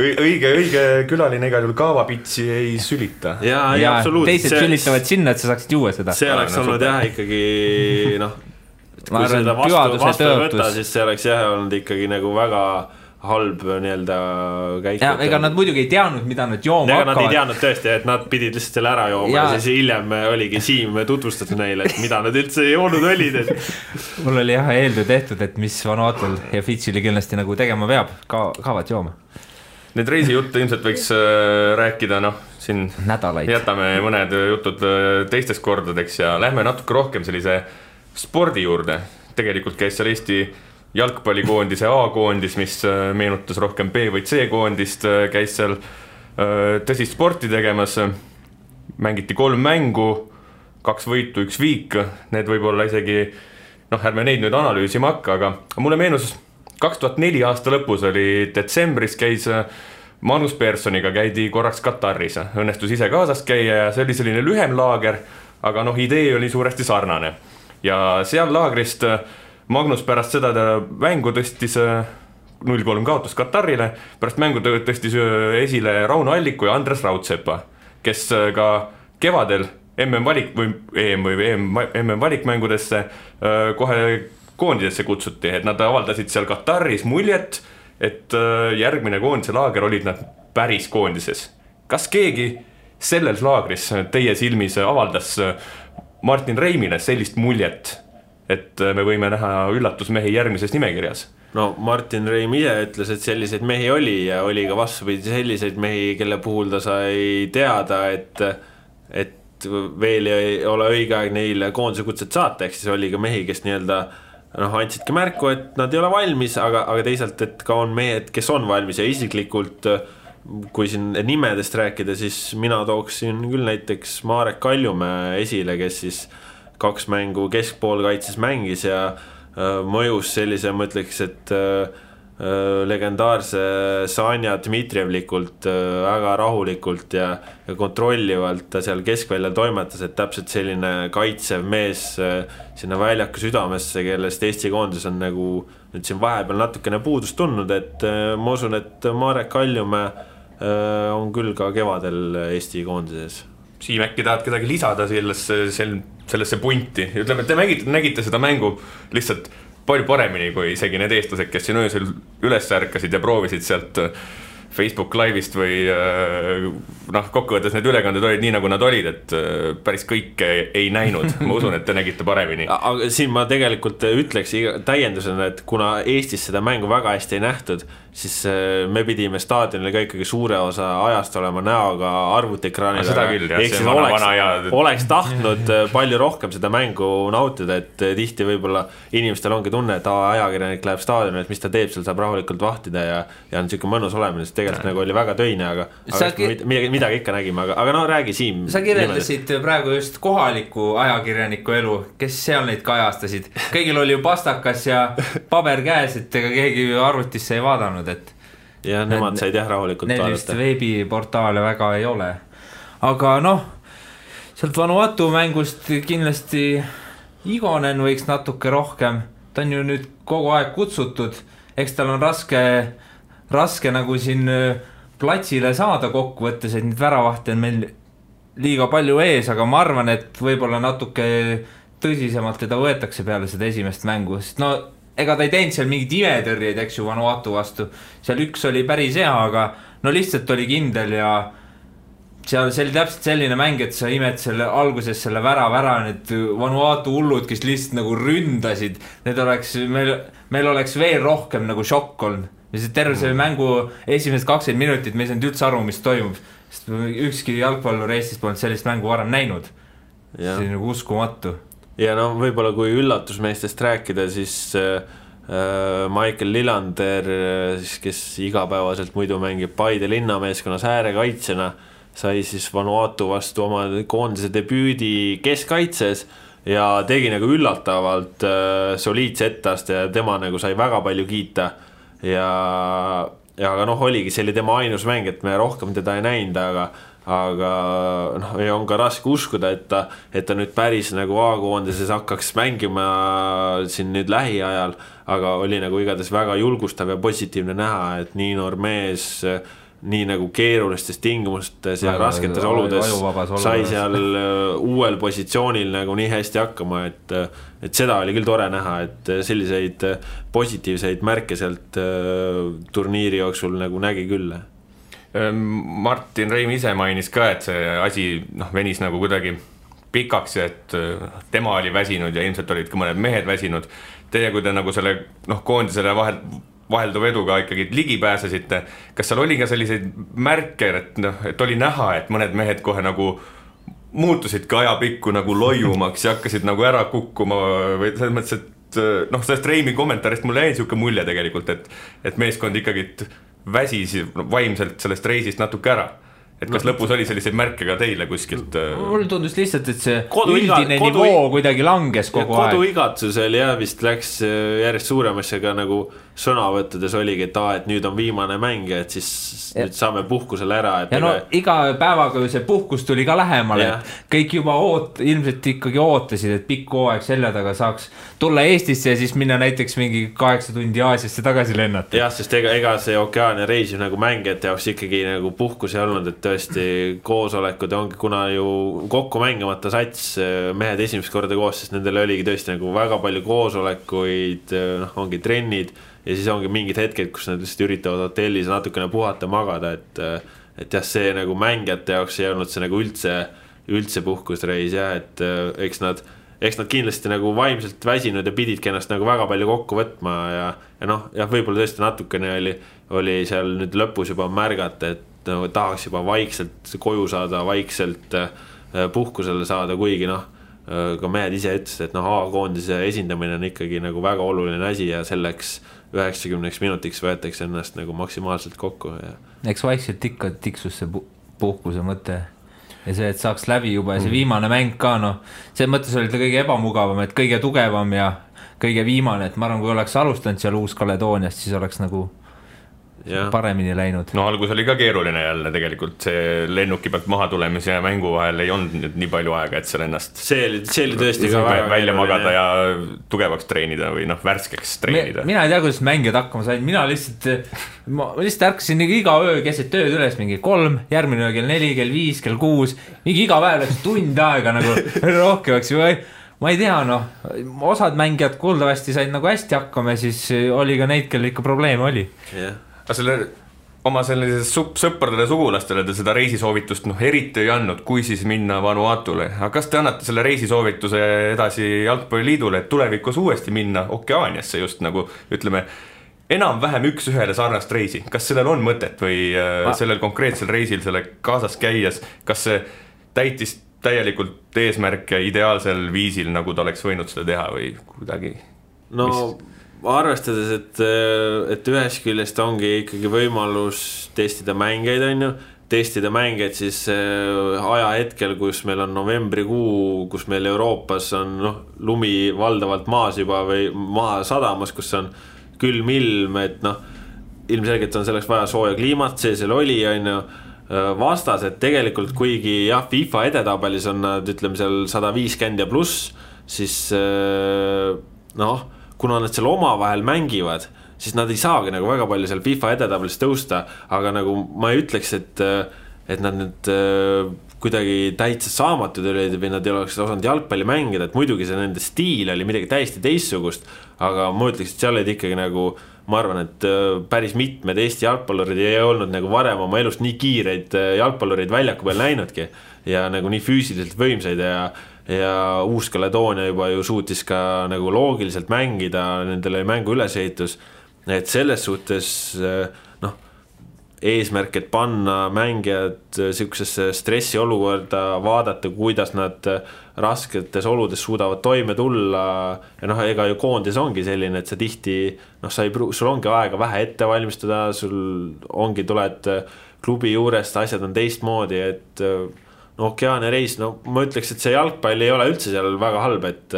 õige külaline igal juhul kaavapitsi ei sülita. Ja absoluutselt. Teised sülitavad sinna, et sa saaksid juua seda. See oleks olnud jah ikkagi, kui seda vastu võtta, siis see oleks jah olnud ikkagi nagu väga halb nii-öelda käik. Ja ega nad muidugi ei teadnud, mida nad jooma hakkavad. Nad ei teadnud tõesti, et nad pidid lihtsalt selle ära jooma ja siis hiljem oligi Siim tutvustada neile, et mida nad üldse joonud olid. Mul oli jah eeldu tehtud, et mis Vanuatul ja Fidžil kindlasti nagu tegema peab, kaavad jooma. Need reisijutte ilmselt võiks rääkida, siin nädalaid. Jätame mõned jutud teistest kordadeks ja lähme natuke rohkem sellise spordi juurde. Tegelikult käis seal Eesti jalgpallikoondise A-koondis, mis meenutas rohkem B- või C-koondist, käis seal tõsist sporti tegemas, mängiti 3 mängu, 2 võitu, 1 viik, need võib olla isegi, ärme neid nüüd analüüsima hakka, aga mulle meenus 2004 aasta lõpus oli detsembris, käis Manus Personiga, käidi korraks Kataris, õnnestus ise kaasast käia ja see oli selline lühem laager, aga idee oli suuresti sarnane ja seal laagrist Magnus pärast seda mängu tõstis 0-3 kaotus Katarile, pärast mängu tõstis esile Rauno Alliku ja Andres Raudsepa, kes ka kevadel MM-valikmängudesse kohe koondidesse kutsuti, et nad avaldasid seal Kataris muljet, et järgmine koondise laager olid nad päris koondises. Kas keegi selles laagris teie silmis avaldas Martin Reimile sellist muljet, et me võime näha üllatusmehi järgmises nimekirjas? No Martin Reim ise ütles, et selliseid mehi oli ja oli ka vastupidi selliseid mehi, kelle puhul ta sai teada, et veel ei ole õige aeg neile koondise kutset saata, ehk siis oli ka mehi, kes nii-öelda andsidki märku, et nad ei ole valmis, aga teisalt, et ka on mehed, kes on valmis ja isiklikult, kui siin nimedest rääkida, siis mina tooksin küll näiteks Marek Kaljumäe esile, kes siis 2 mängu keskpoolkaitses mängis ja mõjus sellise, ma ütleks, et legendaarse Sanja Dmitrijevlikult väga rahulikult ja kontrollivalt ta seal keskväljal toimetas, et täpselt selline kaitsev mees sinna väljaku südamesse, kellest Eesti koondis on nagu nüüd siin vahepeal natukene puudust tundnud, et ma usun, et Marek Kaljumäe on küll ka kevadel Eesti koondises. Siim, äkki tahad kedagi lisada sellesse punti? Ütleme, et te nägite seda mängu lihtsalt palju paremini kui isegi need eestlased, kes siin öösel üles ärkasid ja proovisid sealt Facebook live'ist või kokkuvõttes need ülekanded olid nii, nagu nad olid, et päris kõike ei näinud. Ma usun, et te nägite paremini. Aga siin ma tegelikult ütleks täiendusena, et kuna Eestis seda mängu väga hästi ei nähtud siis me pidime staadionil ka ikkagi suure osa ajast olema näoga arvutiekraanil. Seda küll, jah, see oleks tahtnud palju rohkem seda mängu nautida, et tihti võib-olla inimestel ongi tunne, et ajakirjanik läheb staadionil, et mis ta teeb, seal saab rahulikult vahtida ja on siuke mõnus olemine, sest tegelikult nagu oli väga töine, aga midagi ikka nägime, aga no räägi Siim. Sa kirjeldasid praegu just kohaliku ajakirjaniku elu, kes seal neid kajastasid. Kõigil oli ju pastakas ja paber käes, et ega keegi arvutisse ei vaadanud, et ja nemad said jah rahulikult vaadata. Neil vist veebiportaale väga ei ole. Aga noh, sealt Vanuatu mängust kindlasti Igonen võiks natuke rohkem. Ta on ju nüüd kogu aeg kutsutud. Eks tal on raske nagu siin platsile saada kokku võttes, et nüüd väravahti on meil liiga palju ees, aga ma arvan, et võib-olla natuke tõsisemalt teda võetakse peale seda esimest mängu, sest no ega ta ei teinud seal mingid imetõrjeid, eks ju, Vanuatu vastu. Seal üks oli päris hea, aga no lihtsalt oli kindel ja seal see oli täpselt selline mäng, et sa imed selle alguses selle vära, need Vanuatu hullud, kes lihtsalt nagu ründasid, need oleks, meil oleks veel rohkem nagu šokk olnud. Terve see mängu esimesed 20 minutit me ei saanud üldse aru, mis toimub, sest ükski jalgpallur Eestis polnud sellist mängu varem näinud. See oli nagu uskumatu. Ja no võib-olla kui üllatusmeestest rääkida, siis Michael Lillander, kes igapäevaselt muidu mängib Paide linnameeskonnas äärekaitsena, sai siis Vanuatu vastu oma koondise debüüdi keskkaitses ja tegi nagu üllatavalt soliidse etteaste ja tema nagu sai väga palju kiita ja noh, oligi, see oli tema ainus mäng, et me rohkem teda ei näinud, aga noh, on ka raske uskuda, et ta nüüd päris nagu A-koondises hakkaks mängima siin nüüd lähiajal, aga oli nagu igatahes väga julgustav ja positiivne näha, et nii noor mees nii nagu keerulistes tingimustes ja rasketes oludes sai seal uuel positsioonil nagu nii hästi hakkama, et seda oli küll tore näha, et selliseid positiivseid märke sealt turniiri jooksul nagu nägi küll. Martin Reim ise mainis ka, et see asi venis nagu kuidagi pikaks ja et tema oli väsinud ja ilmselt olid ka mõned mehed väsinud. Teie, kui te nagu selle koondisele vahelduva eduga ikkagi ligi pääsesite, kas seal oli ka selliseid märke, et oli näha, et mõned mehed kohe nagu muutusid ka ajapikku nagu loiumaks ja hakkasid nagu ära kukkuma või selles mõttes, et sellest Reimi kommentaarist mulle jäi siuke mulje tegelikult, et meeskond ikkagi väsis vaimselt sellest reisist natuke ära. Et kas lõpus oli selliseid märke ka teile kuskilt? Mul tundus lihtsalt, et see üldine nivoo kuidagi langes kogu aeg. Koduigatsusel vist läks järjest suuremasse ka nagu sõnavõttudes oligi, et nüüd on viimane mäng, et siis nüüd saame puhkusele ära. Ja no iga päevaga see puhkus tuli ka lähemale, et kõik juba ilmselt ikkagi ootasid, et pikk hooaeg selja taga saaks tulla Eestisse ja siis minna näiteks mingi 8 tundi Aasiasse tagasi lennata. Jah, sest ega see Okeaania reis nagu mängijate jaoks ikkagi nagu puhkus ei olnud, et tõesti koosolekud ongi, kuna ju kokku mängimata sats mehed esimest korda koos, sest nendel oligi tõesti nagu väga palju koosolekuid, ongi trennid ja siis ongi mingid hetked, kus nad lihtsalt üritavad hotellis natukene puhata, magada, et jah, see nagu mängijate jaoks ei olnud see nagu üldse puhkusreis ja et eks nad kindlasti nagu vaimselt väsinud ja pididki ennast nagu väga palju kokku võtma ja võib-olla tõesti natukene oli seal nüüd lõpus juba märgata, et tahaks juba vaikselt koju saada, vaikselt puhkusele saada, kuigi ka mehed ise ütlesid, et A-koondise esindamine on ikkagi nagu väga oluline asi ja selleks 90 minutiks võetakse ennast nagu maksimaalselt kokku. Eks vaikselt ikka tiksus see puhkuse mõte ja see, et saaks läbi juba ja see viimane mäng ka, see mõttes oli ta kõige ebamugavam, et kõige tugevam ja kõige viimane, et ma arvan, kui oleks alustanud seal Uus-Kaledooniast, siis oleks nagu paremini läinud. No algus oli ka keeruline jälle tegelikult, see lennuki pealt maha tulemise ja mängu vahel ei olnud nii palju aega, et seal ennast see oli tõesti ka välja magada ja tugevaks treenida või värskeks treenida. Mina ei tea, kuidas mängijad hakkama sain, mina lihtsalt ärkasin iga öö keset tööd üles mingi 3, järgmine öö kell 4, kell 5, kell 6, mingi iga päev läks tund aega nagu rohkemaks või ma ei tea, osad mängijad kuuldavasti said nagu hästi hakkama ja siis oli ka neid, kel ikka probleeme oli. Oma sellises sõpradele sugulastele te seda reisisoovitust eriti ei andnud, kui siis minna Vanuatule. Aga kas te annate selle reisisoovituse edasi Jalgpalliliidule, et tulevikus uuesti minna Okeaaniasse just nagu ütleme enam-vähem üks-ühele sarnast reisi, kas sellel on mõtet või sellel konkreetsel reisil selle kaasas käies, kas see täitis täielikult eesmärke ideaalsel viisil, nagu ta oleks võinud seda teha või kuidagi? No arvestades, et ühest küljest ongi ikkagi võimalus testida mängeid, on ju, testida mängeid siis ajahetkel, kus meil on novembrikuu, kus meil Euroopas on lumi valdavalt maas juba või maa sadamas, kus on külm ilm, et ilmselgelt on selleks vaja sooja kliimat, see seal oli, on ju, vastas, et tegelikult kuigi jah, FIFA edetabelis on nad, ütleme seal 150 ja pluss, siis kuna nad seal omavahel mängivad, siis nad ei saagi nagu väga palju seal FIFA edetabelis tõusta, aga nagu ma ei ütleks, et nad nüüd kuidagi täitsa saamatud olid või nad ei oleks osanud jalgpalli mängida, et muidugi see nende stiil oli midagi täiesti teistsugust, aga ma ütleks, et seal olid ikkagi nagu, ma arvan, et päris mitmed Eesti jalgpallurid ei olnud nagu varem oma elust nii kiireid jalgpallurid väljaku peal näinudki ja nagu nii füüsiliselt võimsaid ja Uus-Kaledoonia juba ju suutis ka nagu loogiliselt mängida, nendele mängu ülesehitus, et selles suhtes eesmärk, et panna mängijad sellisesse stressiolukorda, vaadata, kuidas nad rasketes oludes suudavad toime tulla ja ega ju koondis ongi selline, et sa tihti sul ongi aega vähe ette valmistada, sul ongi, tuled klubi juurest, asjad on teistmoodi, et Okeaania reis, ma ütleks, et see jalgpall ei ole üldse seal väga halb, et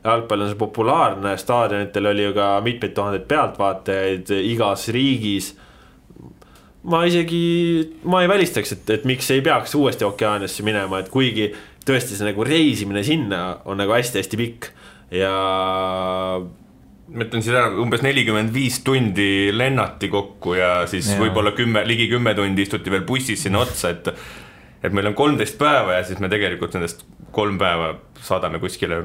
jalgpall on see populaarne, staadionitel oli ju ka mitmeid tuhandeid pealtvaatajaid igas riigis. Ma ei välistaks, et miks ei peaks uuesti Okeaaniasse minema, et kuigi tõesti see nagu reisimine sinna on nagu hästi-hästi pikk ja ma ütlen siis ära, umbes 45 tundi lennati kokku ja siis võib-olla ligi 10 tundi istuti veel bussis sinna otsa, et meil on 13 päeva ja siis me tegelikult nendest 3 päeva saadame kuskile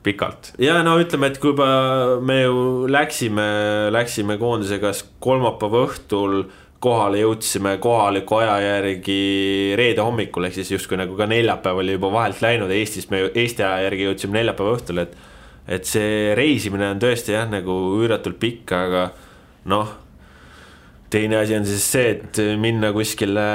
pikalt. Ja ütleme, et kui me ju läksime koondisega kolmapäeva õhtul kohale, jõudsime kohaliku aja järgi reede hommikul, ehk siis justkui nagu ka neljapäev oli juba vahelt läinud Eestis, me Eesti aja järgi jõudsime neljapäeva õhtul, et see reisimine on tõesti nagu üüratult pikk, aga teine asi on siis see, et minna kuskile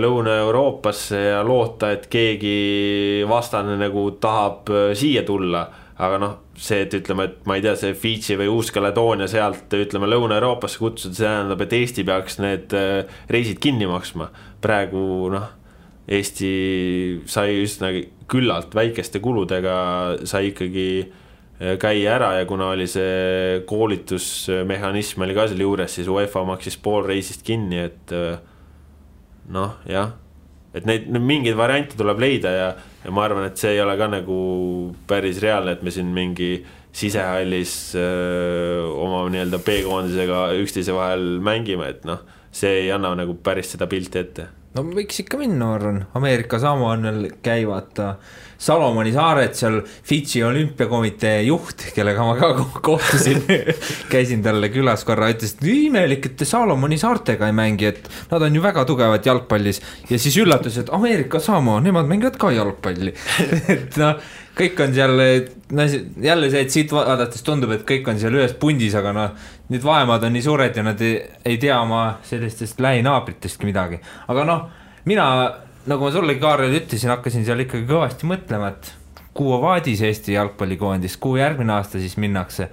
Lõuna-Euroopasse ja loota, et keegi vastane nagu tahab siia tulla, aga see, et ütleme, et ma ei tea, see Fidži või Uus-Kaledoonia sealt, ütleme, Lõuna-Euroopasse kutsuda, see tähendab, et Eesti peaks need reisid kinni maksma. Praegu Eesti sai üsna küllalt väikeste kuludega, sai ikkagi käia ära ja kuna oli see koolitusmehhanism oli ka selle juures, siis UEFA maksis pool reisist kinni, et jah, et neid mingeid variante tuleb leida ja ma arvan, et see ei ole ka nagu päris reaalne, et me siin mingi sisehallis oma nii-öelda B-koondisega üksteise vahel mängime, et see ei anna nagu päris seda pilti ette. Võiks ikka minna, arvan. Ameerika Samoanel käivad Salomoni saared, seal Fidži olümpiakomitee juht, kellega ma ka kohtusin, käisin talle külas korra, ütles, et imelik, et Salomoni saartega ei mängi, et nad on ju väga tugevad jalgpallis ja siis üllatus, et Ameerika Samoa, nemad mängivad ka jalgpalli. Et kõik on seal, jälle see, et siit vaadates tundub, et kõik on seal ühes pundis, aga need vaemad on nii suured ja nad ei tea oma sellistest lähinaabritestki midagi. Aga mina, nagu ma sulle, Kaarel, ütlesin, hakkasin seal ikkagi kõvasti mõtlema, et kuhu vaadis Eesti jalgpallikoondis, kuhu järgmine aasta siis minnakse.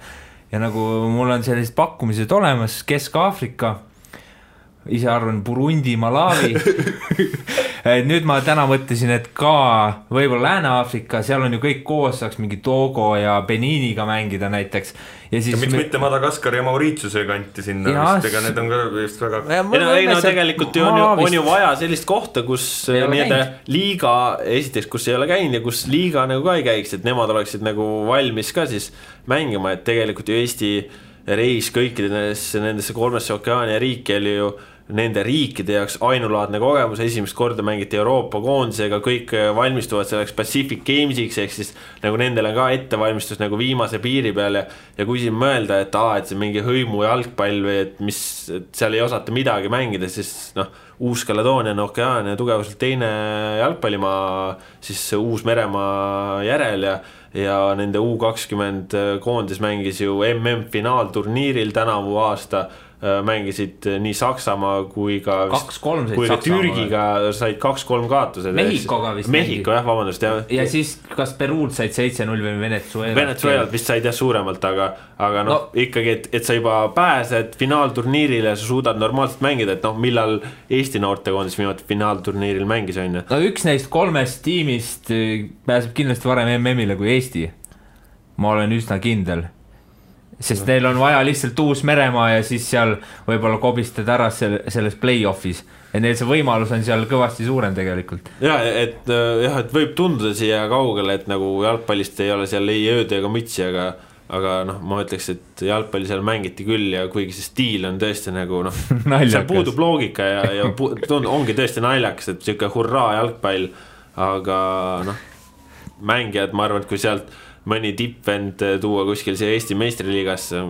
Ja nagu mul on sellised pakkumised olemas, Kesk-Aafrika, ise arvan Burundi, Malawi. Nüüd ma täna mõtlesin, et ka võib-olla Lääne-Aafrika, seal on ju kõik koos, saaks mingi Togo ja Beniniga mängida näiteks. Ja siis miks mitte Madagaskar ja Mauritiuse kanti sinna vist, ega need on ka vist väga... tegelikult on ju vaja sellist kohta, kus liiga, esiteks, kus ei ole käinud ja kus liiga nagu ka ei käiks, et nemad oleksid nagu valmis ka siis mängima, et tegelikult ju Eesti reis kõikidesse nendesse 3 Okeaania riiki oli ju nende riikide jaoks ainulaadne kogemus, esimest korda mängiti Euroopa koondisega, kõik valmistuvad selleks Pacific Gamesiks, ehk siis nagu nendele ka ettevalmistus nagu viimase piiri peal ja kui siin mõelda, et see mingi hõimu jalgpall või et seal ei osata midagi mängida, siis Uus-Kaledoonia on Okeaania tugevuselt teine jalgpallimaa siis Uus-Meremaa järel ja nende U20 koondis mängis ju MM-finaalturniiril tänavu aasta, mängisid nii Saksamaa kui ka 2-3 kui ka Türgiga said 2-3 kaotused. Mehhikoga vist Mehhiko, jah, vabandust. Ja siis kas Peruult said 7-0 või Venezuelalt vist said jah suuremalt, aga no, ikkagi, et sa juba pääsed finaalturniirile ja sa suudad normaalselt mängida, et noh, millal Eesti noortekoondis viimati finaalturniiril mängis on. No üks neist 3 tiimist pääseb kindlasti varem MM-ile kui Eesti. Ma olen üsna kindel. Sest neil on vaja lihtsalt Uus-Meremaa ja siis seal võib-olla kobistada ära selles play-offis. Ja neil see võimalus on seal kõvasti suurem tegelikult. Ja, et võib tunduda siia kaugele, et nagu jalgpallist ei ole seal ei ööd ega mütsi, aga noh, ma ütleks, et jalgpalli seal mängiti küll ja kuigi see stiil on tõesti nagu noh, seal puudub loogika ja ongi tõesti naljakas, et siuke hurraa jalgpall, aga noh, mängijad, ma arvan, et kui sealt mõni tippvend tuua kuskil siia Eesti meistriliigasse,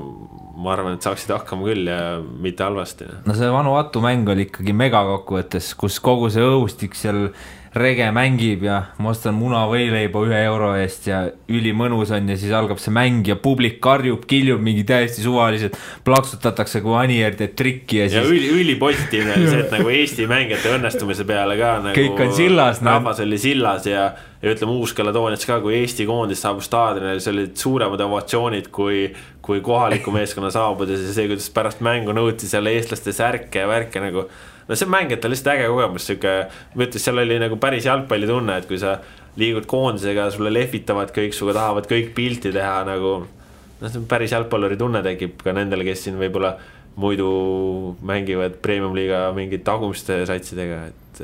ma arvan, et saaksid hakkama küll ja mitte halvasti. No see Vanuatu mäng oli ikkagi megakokkuvõttes, kus kogu see õhustik seal rege mängib ja ma ostan muna võileiba €1 eest ja ülimõnus on ja siis algab see mäng ja publik karjub, kiljub mingi täiesti suvaliselt, plaksutatakse kui Anier teeb trikki ja siis... Ja ülipositiivne oli see, et nagu Eesti mängijate õnnestumise peale ka nagu kõik on sillas. Rahvas oli sillas ja ütleme Uus-Kalatoonias ka, kui Eesti koondis saabus staadionile, see olid suuremad ovatsioonid kui kohaliku meeskonna saabudes ja see, kuidas pärast mängu nõuti seal eestlaste särke ja värke nagu no see mängijate lihtsalt äge kogemus, ma ütles, seal oli nagu päris jalgpalli tunne, et kui sa liigud koondisega, sulle lehvitavad kõik, suga tahavad kõik pilti teha nagu, no see päris jalgpalluri tunne tekib ka nendele, kes siin võib-olla muidu mängivad premium-liiga mingid tagumiste satsidega, et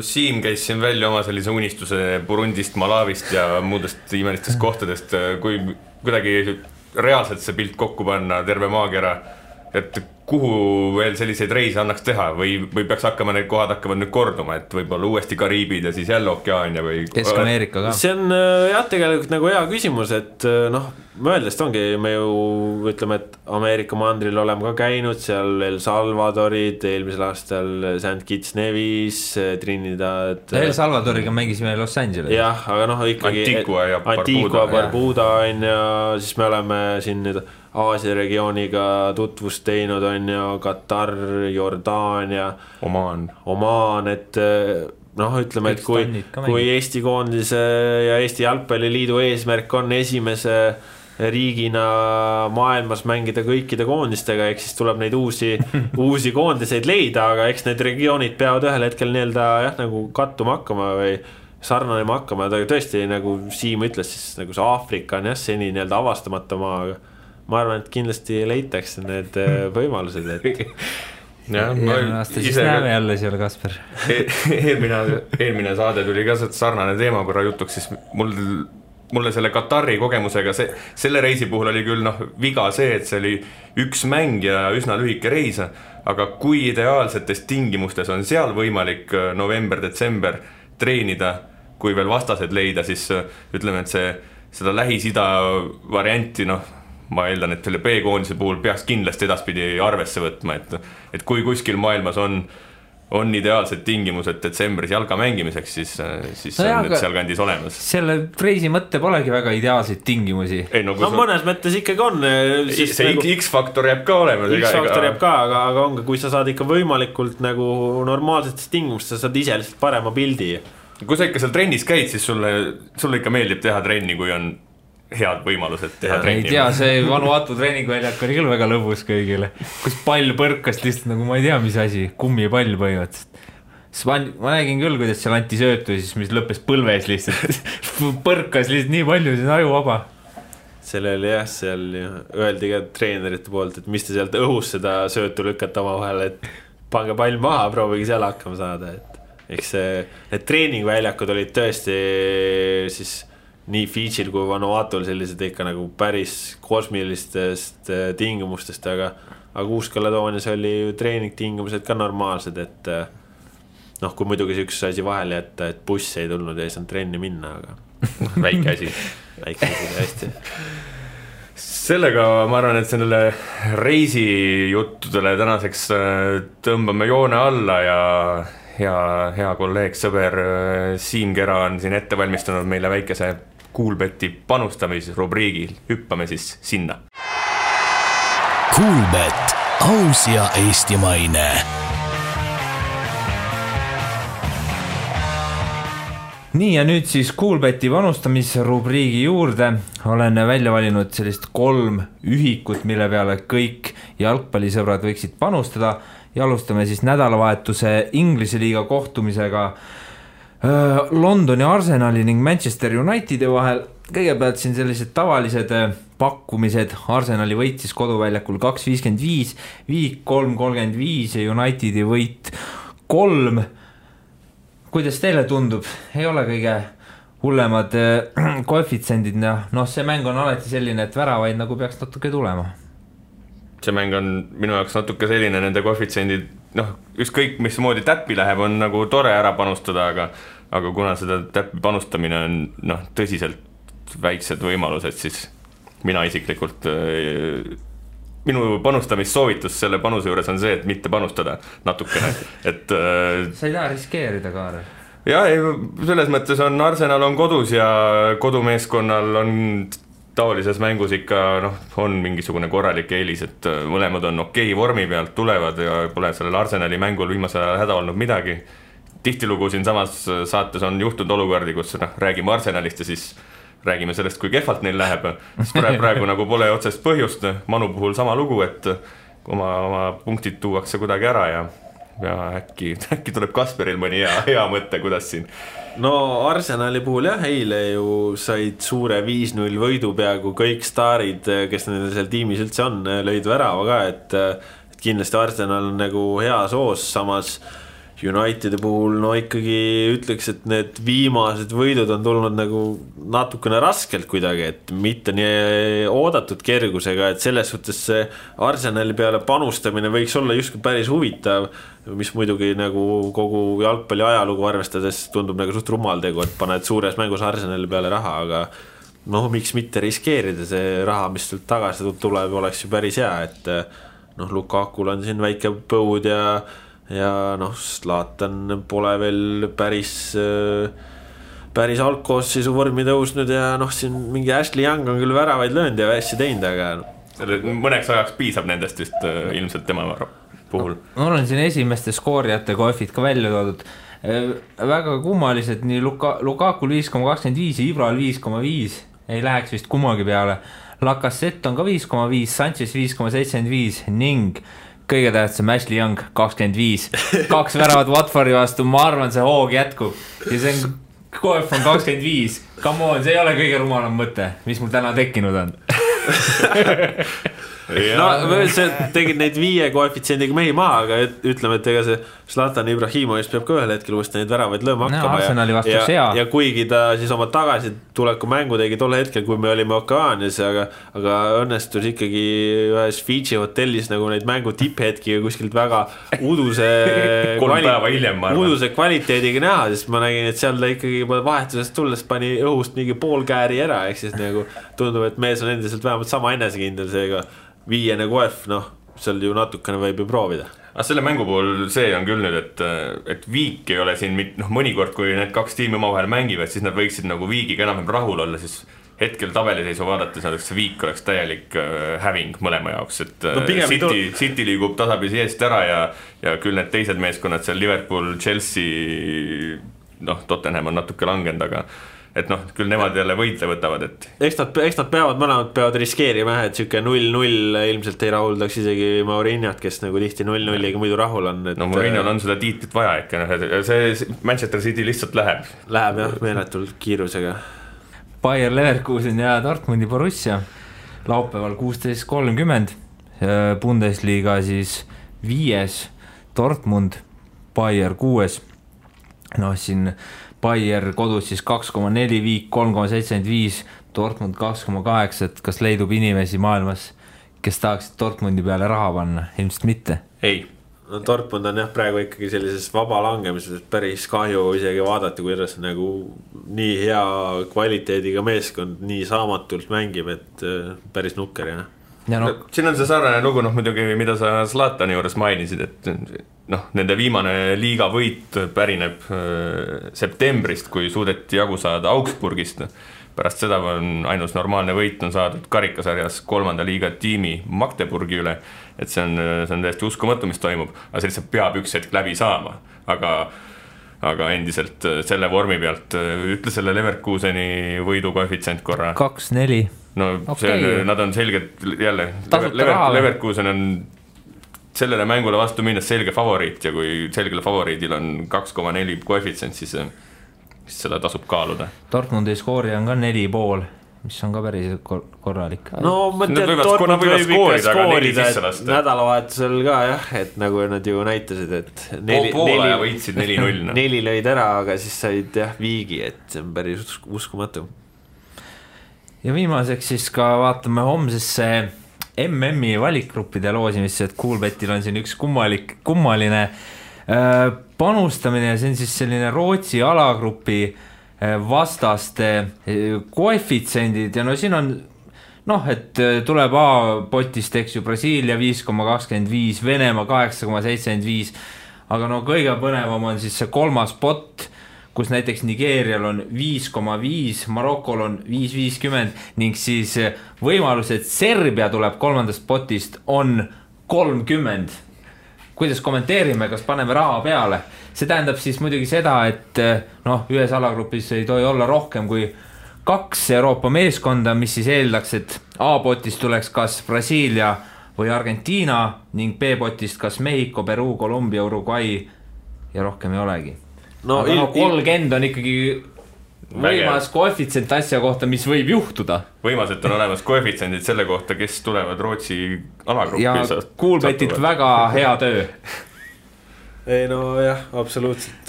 Siim käis siin välja oma sellise unistuse Burundist, Malavist ja muudest imelistest kohtadest, kui kuidagi reaalselt see pilt kokku panna, terve maakera, et kuhu veel selliseid reise annaks teha või peaks hakkama need kohad hakkavad nüüd korduma, et võib-olla uuesti Kariibid ja siis jälle Okeaania või Kesk-Ameerika ka. See on jah tegelikult nagu hea küsimus, et noh, mõeldest ongi, me ju ütleme, et Ameerika mandril oleme ka käinud, seal El Salvadorid, eelmisel aastal St. Kitts Nevis, Trinidad. El Salvadoriga mängisime Los Angeles. Jah, aga noh ikkagi Antigua, Barbuda on ja siis me oleme siin nüüd Aasia regiooniga tutvust teinud on ja Katar, Jordaania, Omaan, et noh, ütleme, et kui Eesti koondise ja Eesti jalgpalliliidu eesmärk on esimese riigina maailmas mängida kõikide koondistega, eks siis tuleb neid uusi koondiseid leida, aga eks need regioonid peavad ühel hetkel nii-öelda jah, nagu kattuma hakkama või sarnanema hakkama, aga tõesti nagu Siim ütles, siis nagu see Aafrika on jah, seni nii-öelda avastamata maa, aga ma arvan, et kindlasti leitakse need võimalused, et eelmine aasta siis näeme jälle seal, Kasper. Eelmine saade tuli ka sarnane teema korra jutuks, siis mulle selle Katari kogemusega selle reisi puhul oli küll viga see, et see oli üks mäng ja üsna lühike reis, aga kui ideaalsetes tingimustes on seal võimalik november-detsember treenida, kui veel vastased leida, siis ütleme, et seda Lähis-Ida varianti ma eeldan, et selle B-koondise puhul peaks kindlasti edaspidi arvesse võtma, et kui kuskil maailmas on ideaalsed tingimused detsembris jalga mängimiseks, siis on need seal kandis olemas. Selle reisi mõtte polegi väga ideaalseid tingimusi. Mõnes mõttes ikkagi on. See X-faktor jääb ka olema. X-faktor jääb ka, aga ongi, kui sa saad ikka võimalikult nagu normaalsetest tingimust, sa saad ise lihtsalt parema pildi. Kui sa ikka seal trennis käid, siis sulle ikka meeldib teha trenni, kui on head võimalused teha trenni. Ei tea, see Vanuatu treeningväljak oli küll väga lõbus kõigile, kus pall põrkas lihtsalt nagu ma ei tea, mis asi, kummipall põhimõtteliselt. Ma nägin küll, kuidas seal anti söötu, siis mis lõppes põlves lihtsalt. Põrkas lihtsalt nii palju, see on ajuvaba. Selle oli jah, seal öeldi ka treenerite poolt, et mis te sealt õhus seda söötu lükkate oma vahel, et pange pall maha, proovige seal hakkama saada. Eks need treeningväljakud olid tõesti siis nii Fidžil kui Vanuatul sellised ikka nagu päris kosmilistest tingimustest, aga Uus-Kalatoonias oli ju treeningtingimused ka normaalsed, et noh, kui muidugi see üks asi vahele jätta, et buss ei tulnud ja ei saanud trenni minna, aga väike asi hästi. Sellega ma arvan, et sellele reisijuttudele tänaseks tõmbame joone alla ja hea kolleeg, sõber Siim Kera on siin ette valmistanud meile väikese Kuulbeti panustamisrubriigil. Hüppame siis sinna. Kuulbet, aus ja eestimaine. Nii ja nüüd siis Kuulbeti panustamisrubriigi juurde olen välja valinud sellist 3 ühikut, mille peale kõik jalgpallisõbrad võiksid panustada ja alustame siis nädalavahetuse Inglise liiga kohtumisega Londoni Arsenali ning Manchester Unitedi vahel. Kõigepealt siin sellised tavalised pakkumised. Arsenali võit siis koduväljakul 2.55, Viik 3.35 ja Unitedi võit 3. Kuidas teile tundub? Ei ole kõige hullemad koefitsendid. See mäng on alati selline, et väravaid nagu peaks natuke tulema. See mäng on minu jaoks natuke selline, nende koefitsendid, ükskõik mis moodi täppi läheb, on nagu tore ära panustada, aga kuna seda täppi panustamine on tõsiselt väiksed võimalused, siis mina isiklikult, minu panustamissoovitus selle panuse juures on see, et mitte panustada natukene. Sa ei taha riskeerida, Kaarel? Ja, selles mõttes on Arsenal on kodus ja kodumeeskonnal on taolises mängus ikka on mingisugune korralik eelis, et mõlemad on okei vormi pealt tulevad ja pole sellel Arsenali mängul viimasel ajal häda olnud midagi. Tihtilugu siin samas saates on juhtunud olukordi, kus räägime Arsenalist ja siis räägime sellest, kui kehvalt neil läheb. Siis praegu nagu pole otsest põhjust. Manu puhul sama lugu, et oma punktid tuuakse kuidagi ära ja äkki tuleb Kasperil mõni hea mõte, kuidas siin. No Arsenali puhul jah, eile ju said suure 5-0 võidu peaaegu kõik staarid, kes nendel seal tiimis üldse on, lõid värava ka, et kindlasti Arsenal on nagu hea soos, samas Unitedi puhul ikkagi ütleks, et need viimased võidud on tulnud nagu natukene raskelt kuidagi, et mitte nii oodatud kergusega, et selles suhtes see Arsenali peale panustamine võiks olla justkui päris huvitav, mis muidugi nagu kogu jalgpalli ajalugu arvestades tundub nagu suht rumal tegu, et paned suures mängus Arsenali peale raha, aga miks mitte riskeerida, see raha, mis sealt tagasi tuleb, oleks ju päris hea, et Lukakul on siin väike põud ja Zlatan pole veel päris algkoosseisu vormi tõusnud ja siin mingi Ashley Young on küll väravaid löönud ja hästi teinud, aga mõneks ajaks piisab nendest vist ilmselt tema puhul. Mul on siin esimeste skoorijate koefid ka välja toodud. Väga kummalised, nii Lukakul 5.25 ja Ibral 5.5 ei läheks vist kummagi peale. Lacazette on ka 5.5, Sanchez 5.75 ning kõige tähtsam Ashley Young 25. 2 väravat Watfordi vastu, ma arvan, see hoog jätkub. Ja see on koef on 25. Come on, see ei ole kõige rumalam mõte, mis mul täna tekkinud on. See tegid neid 5 koefitsiendiga mehi maha, aga ütleme, et ega see Zlatan Ibrahimovic peab ka ühel hetkel uuesti neid väravaid lööma hakkama ja kuigi ta siis oma tagasituleku mängu tegi tol hetkel, kui me olime Okaanias, aga õnnestus ikkagi ühes Fiji hotellis nagu neid mängu tipphetki kuskilt väga uduse kvaliteediga näha, sest ma nägin, et seal ta ikkagi vahetusest tulles pani õhust mingi pool kääri ära, ehk siis nagu tundub, et mees on endiselt vähemalt sama enesekindel, seega 5 koef, seal ju natukene võib ju proovida. Aga selle mängu puhul see on küll nüüd, et Viik ei ole siin mõnikord, kui need 2 tiimi omavahel mängivad, siis nad võiksid nagu Viigiga enam rahul olla, siis hetkel tabeliseisu vaadates see Viik oleks täielik häving mõlema jaoks, et City liigub tasapisi eest ära ja küll need teised meeskonnad seal Liverpool, Chelsea, Tottenham on natuke langenud, aga et küll nemad jälle võitle võtavad, et eks nad mõlemad peavad riskeerima, et siuke 0-0 ilmselt ei rahuldaks isegi Mourinhot, kes nagu tihti 0-0-iga muidu rahul on, et Mourinhol on seda tiitlit vaja ikka, see Manchester City lihtsalt läheb jah, meeletult kiirusega. Bayer Leverkusen ja Dortmundi Borussia laupäeval 16.30 Bundesliga siis 5. Dortmund, Bayer 6. Siin Bayer kodus siis 2.4, Viik 3.75, Dortmund 2.8, et kas leidub inimesi maailmas, kes tahaksid Dortmundi peale raha panna? Ilmselt mitte. Ei. Dortmund on praegu ikkagi sellises vaba langemises päris kahju isegi vaadata, kuidas nagu nii hea kvaliteediga meeskond nii saamatult mängib, et päris nukker, jah. Siin on see sarnane lugu, muidugi, mida sa Zlatani juures mainisid, et nende viimane liiga võit pärineb septembrist, kui suudeti jagu saada Augsburgist. pärast seda on ainus normaalne võit on saadud karikasarjas 3. liiga tiimi Magdeburgi üle, et see on täiesti uskumatu, mis toimub, aga see lihtsalt peab üks hetk läbi saama, aga endiselt selle vormi pealt ütle selle Leverkuseni võidu koefitsient korra. 2-4. No okay. Nad on selgelt jälle, Leverkusen on sellele mängule vastu minnes selge favoriit ja kui selgele favoriidil on 2,4 koefitsient, siis seda tasub kaaluda. Dortmundi skoori on ka 4,5, mis on ka päris korralik. No ma tean, Dortmund võib ikka skoorida, et nädalavahetusel ka jah, et nagu nad ju näitasid, et poole ja võitsid 4-0. 4 lõid ära, aga siis said jah viigi, et see on päris uskumatu. Ja viimaseks siis ka vaatame homsesse MM-i valikgruppide loosimisse, et Coolbetil on siin üks kummaline panustamine ja see on siis selline Rootsi alagrupi vastaste koefitsendid ja no siin on et tuleb A-potist, eks ju, Brasiilia 5,25, Venemaa 8,75, aga kõige põnevam on siis see 3. pot, kus näiteks Nigeerial on 5,5, Marokol on 5,50 ning siis võimalus, et Serbia tuleb 3. potist on 30. Kuidas kommenteerime, kas paneme raha peale? See tähendab siis muidugi seda, et ühes alagrupis ei tohi olla rohkem kui 2 Euroopa meeskonda, mis siis eeldaks, et A-potist tuleks kas Brasiilia või Argentiina ning B-potist kas Mehhiko, Peruu, Kolumbia, Uruguay ja rohkem ei olegi. Aga 30 on ikkagi võimas koefitsient asja kohta, mis võib juhtuda. Võimas, et on olemas koefitsendid selle kohta, kes tulevad Rootsi alagruppi. Ja Coolbetilt väga hea töö. Ei jah, absoluutselt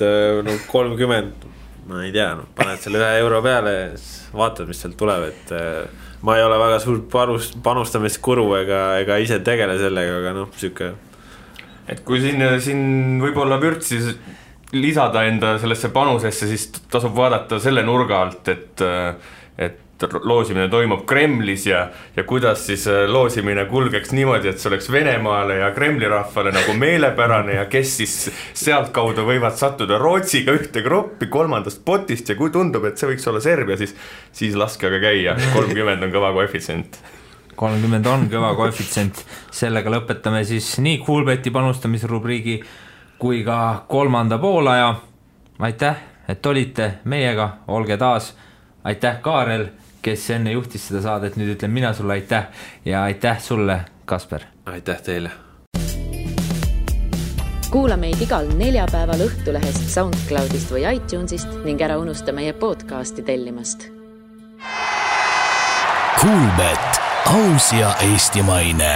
30, ma ei tea, paned selle €1 peale ja vaatad, mis sealt tuleb, et ma ei ole väga suur panustamiskuru ega ise tegele sellega, aga süke. Et kui siin võib-olla vürtsi lisada enda sellesse panusesse, siis tasub vaadata selle nurga alt, et loosimine toimub Kremlis ja kuidas siis loosimine kulgeks niimoodi, et see oleks Venemaale ja Kremli rahvale nagu meelepärane ja kes siis sealt kaudu võivad sattuda Rootsiga ühte gruppi 3. potist ja kui tundub, et see võiks olla Serbia, siis laske aga käia, 30 on kõva koefitsient. 30 on kõva koefitsient, sellega lõpetame siis nii Coolbeti panustamisrubriigi kui ka 3. poolaja. Aitäh, et olite meiega, olge taas. Aitäh Kaarel, kes enne juhtis seda saadet, nüüd ütlen mina sulle aitäh ja aitäh sulle, Kasper. Aitäh teile. Kuula meid igal neljapäeval Õhtulehest, SoundCloudist või iTunesist ning ära unusta meie podcasti tellimast. Coolbet, aus ja eestimaine.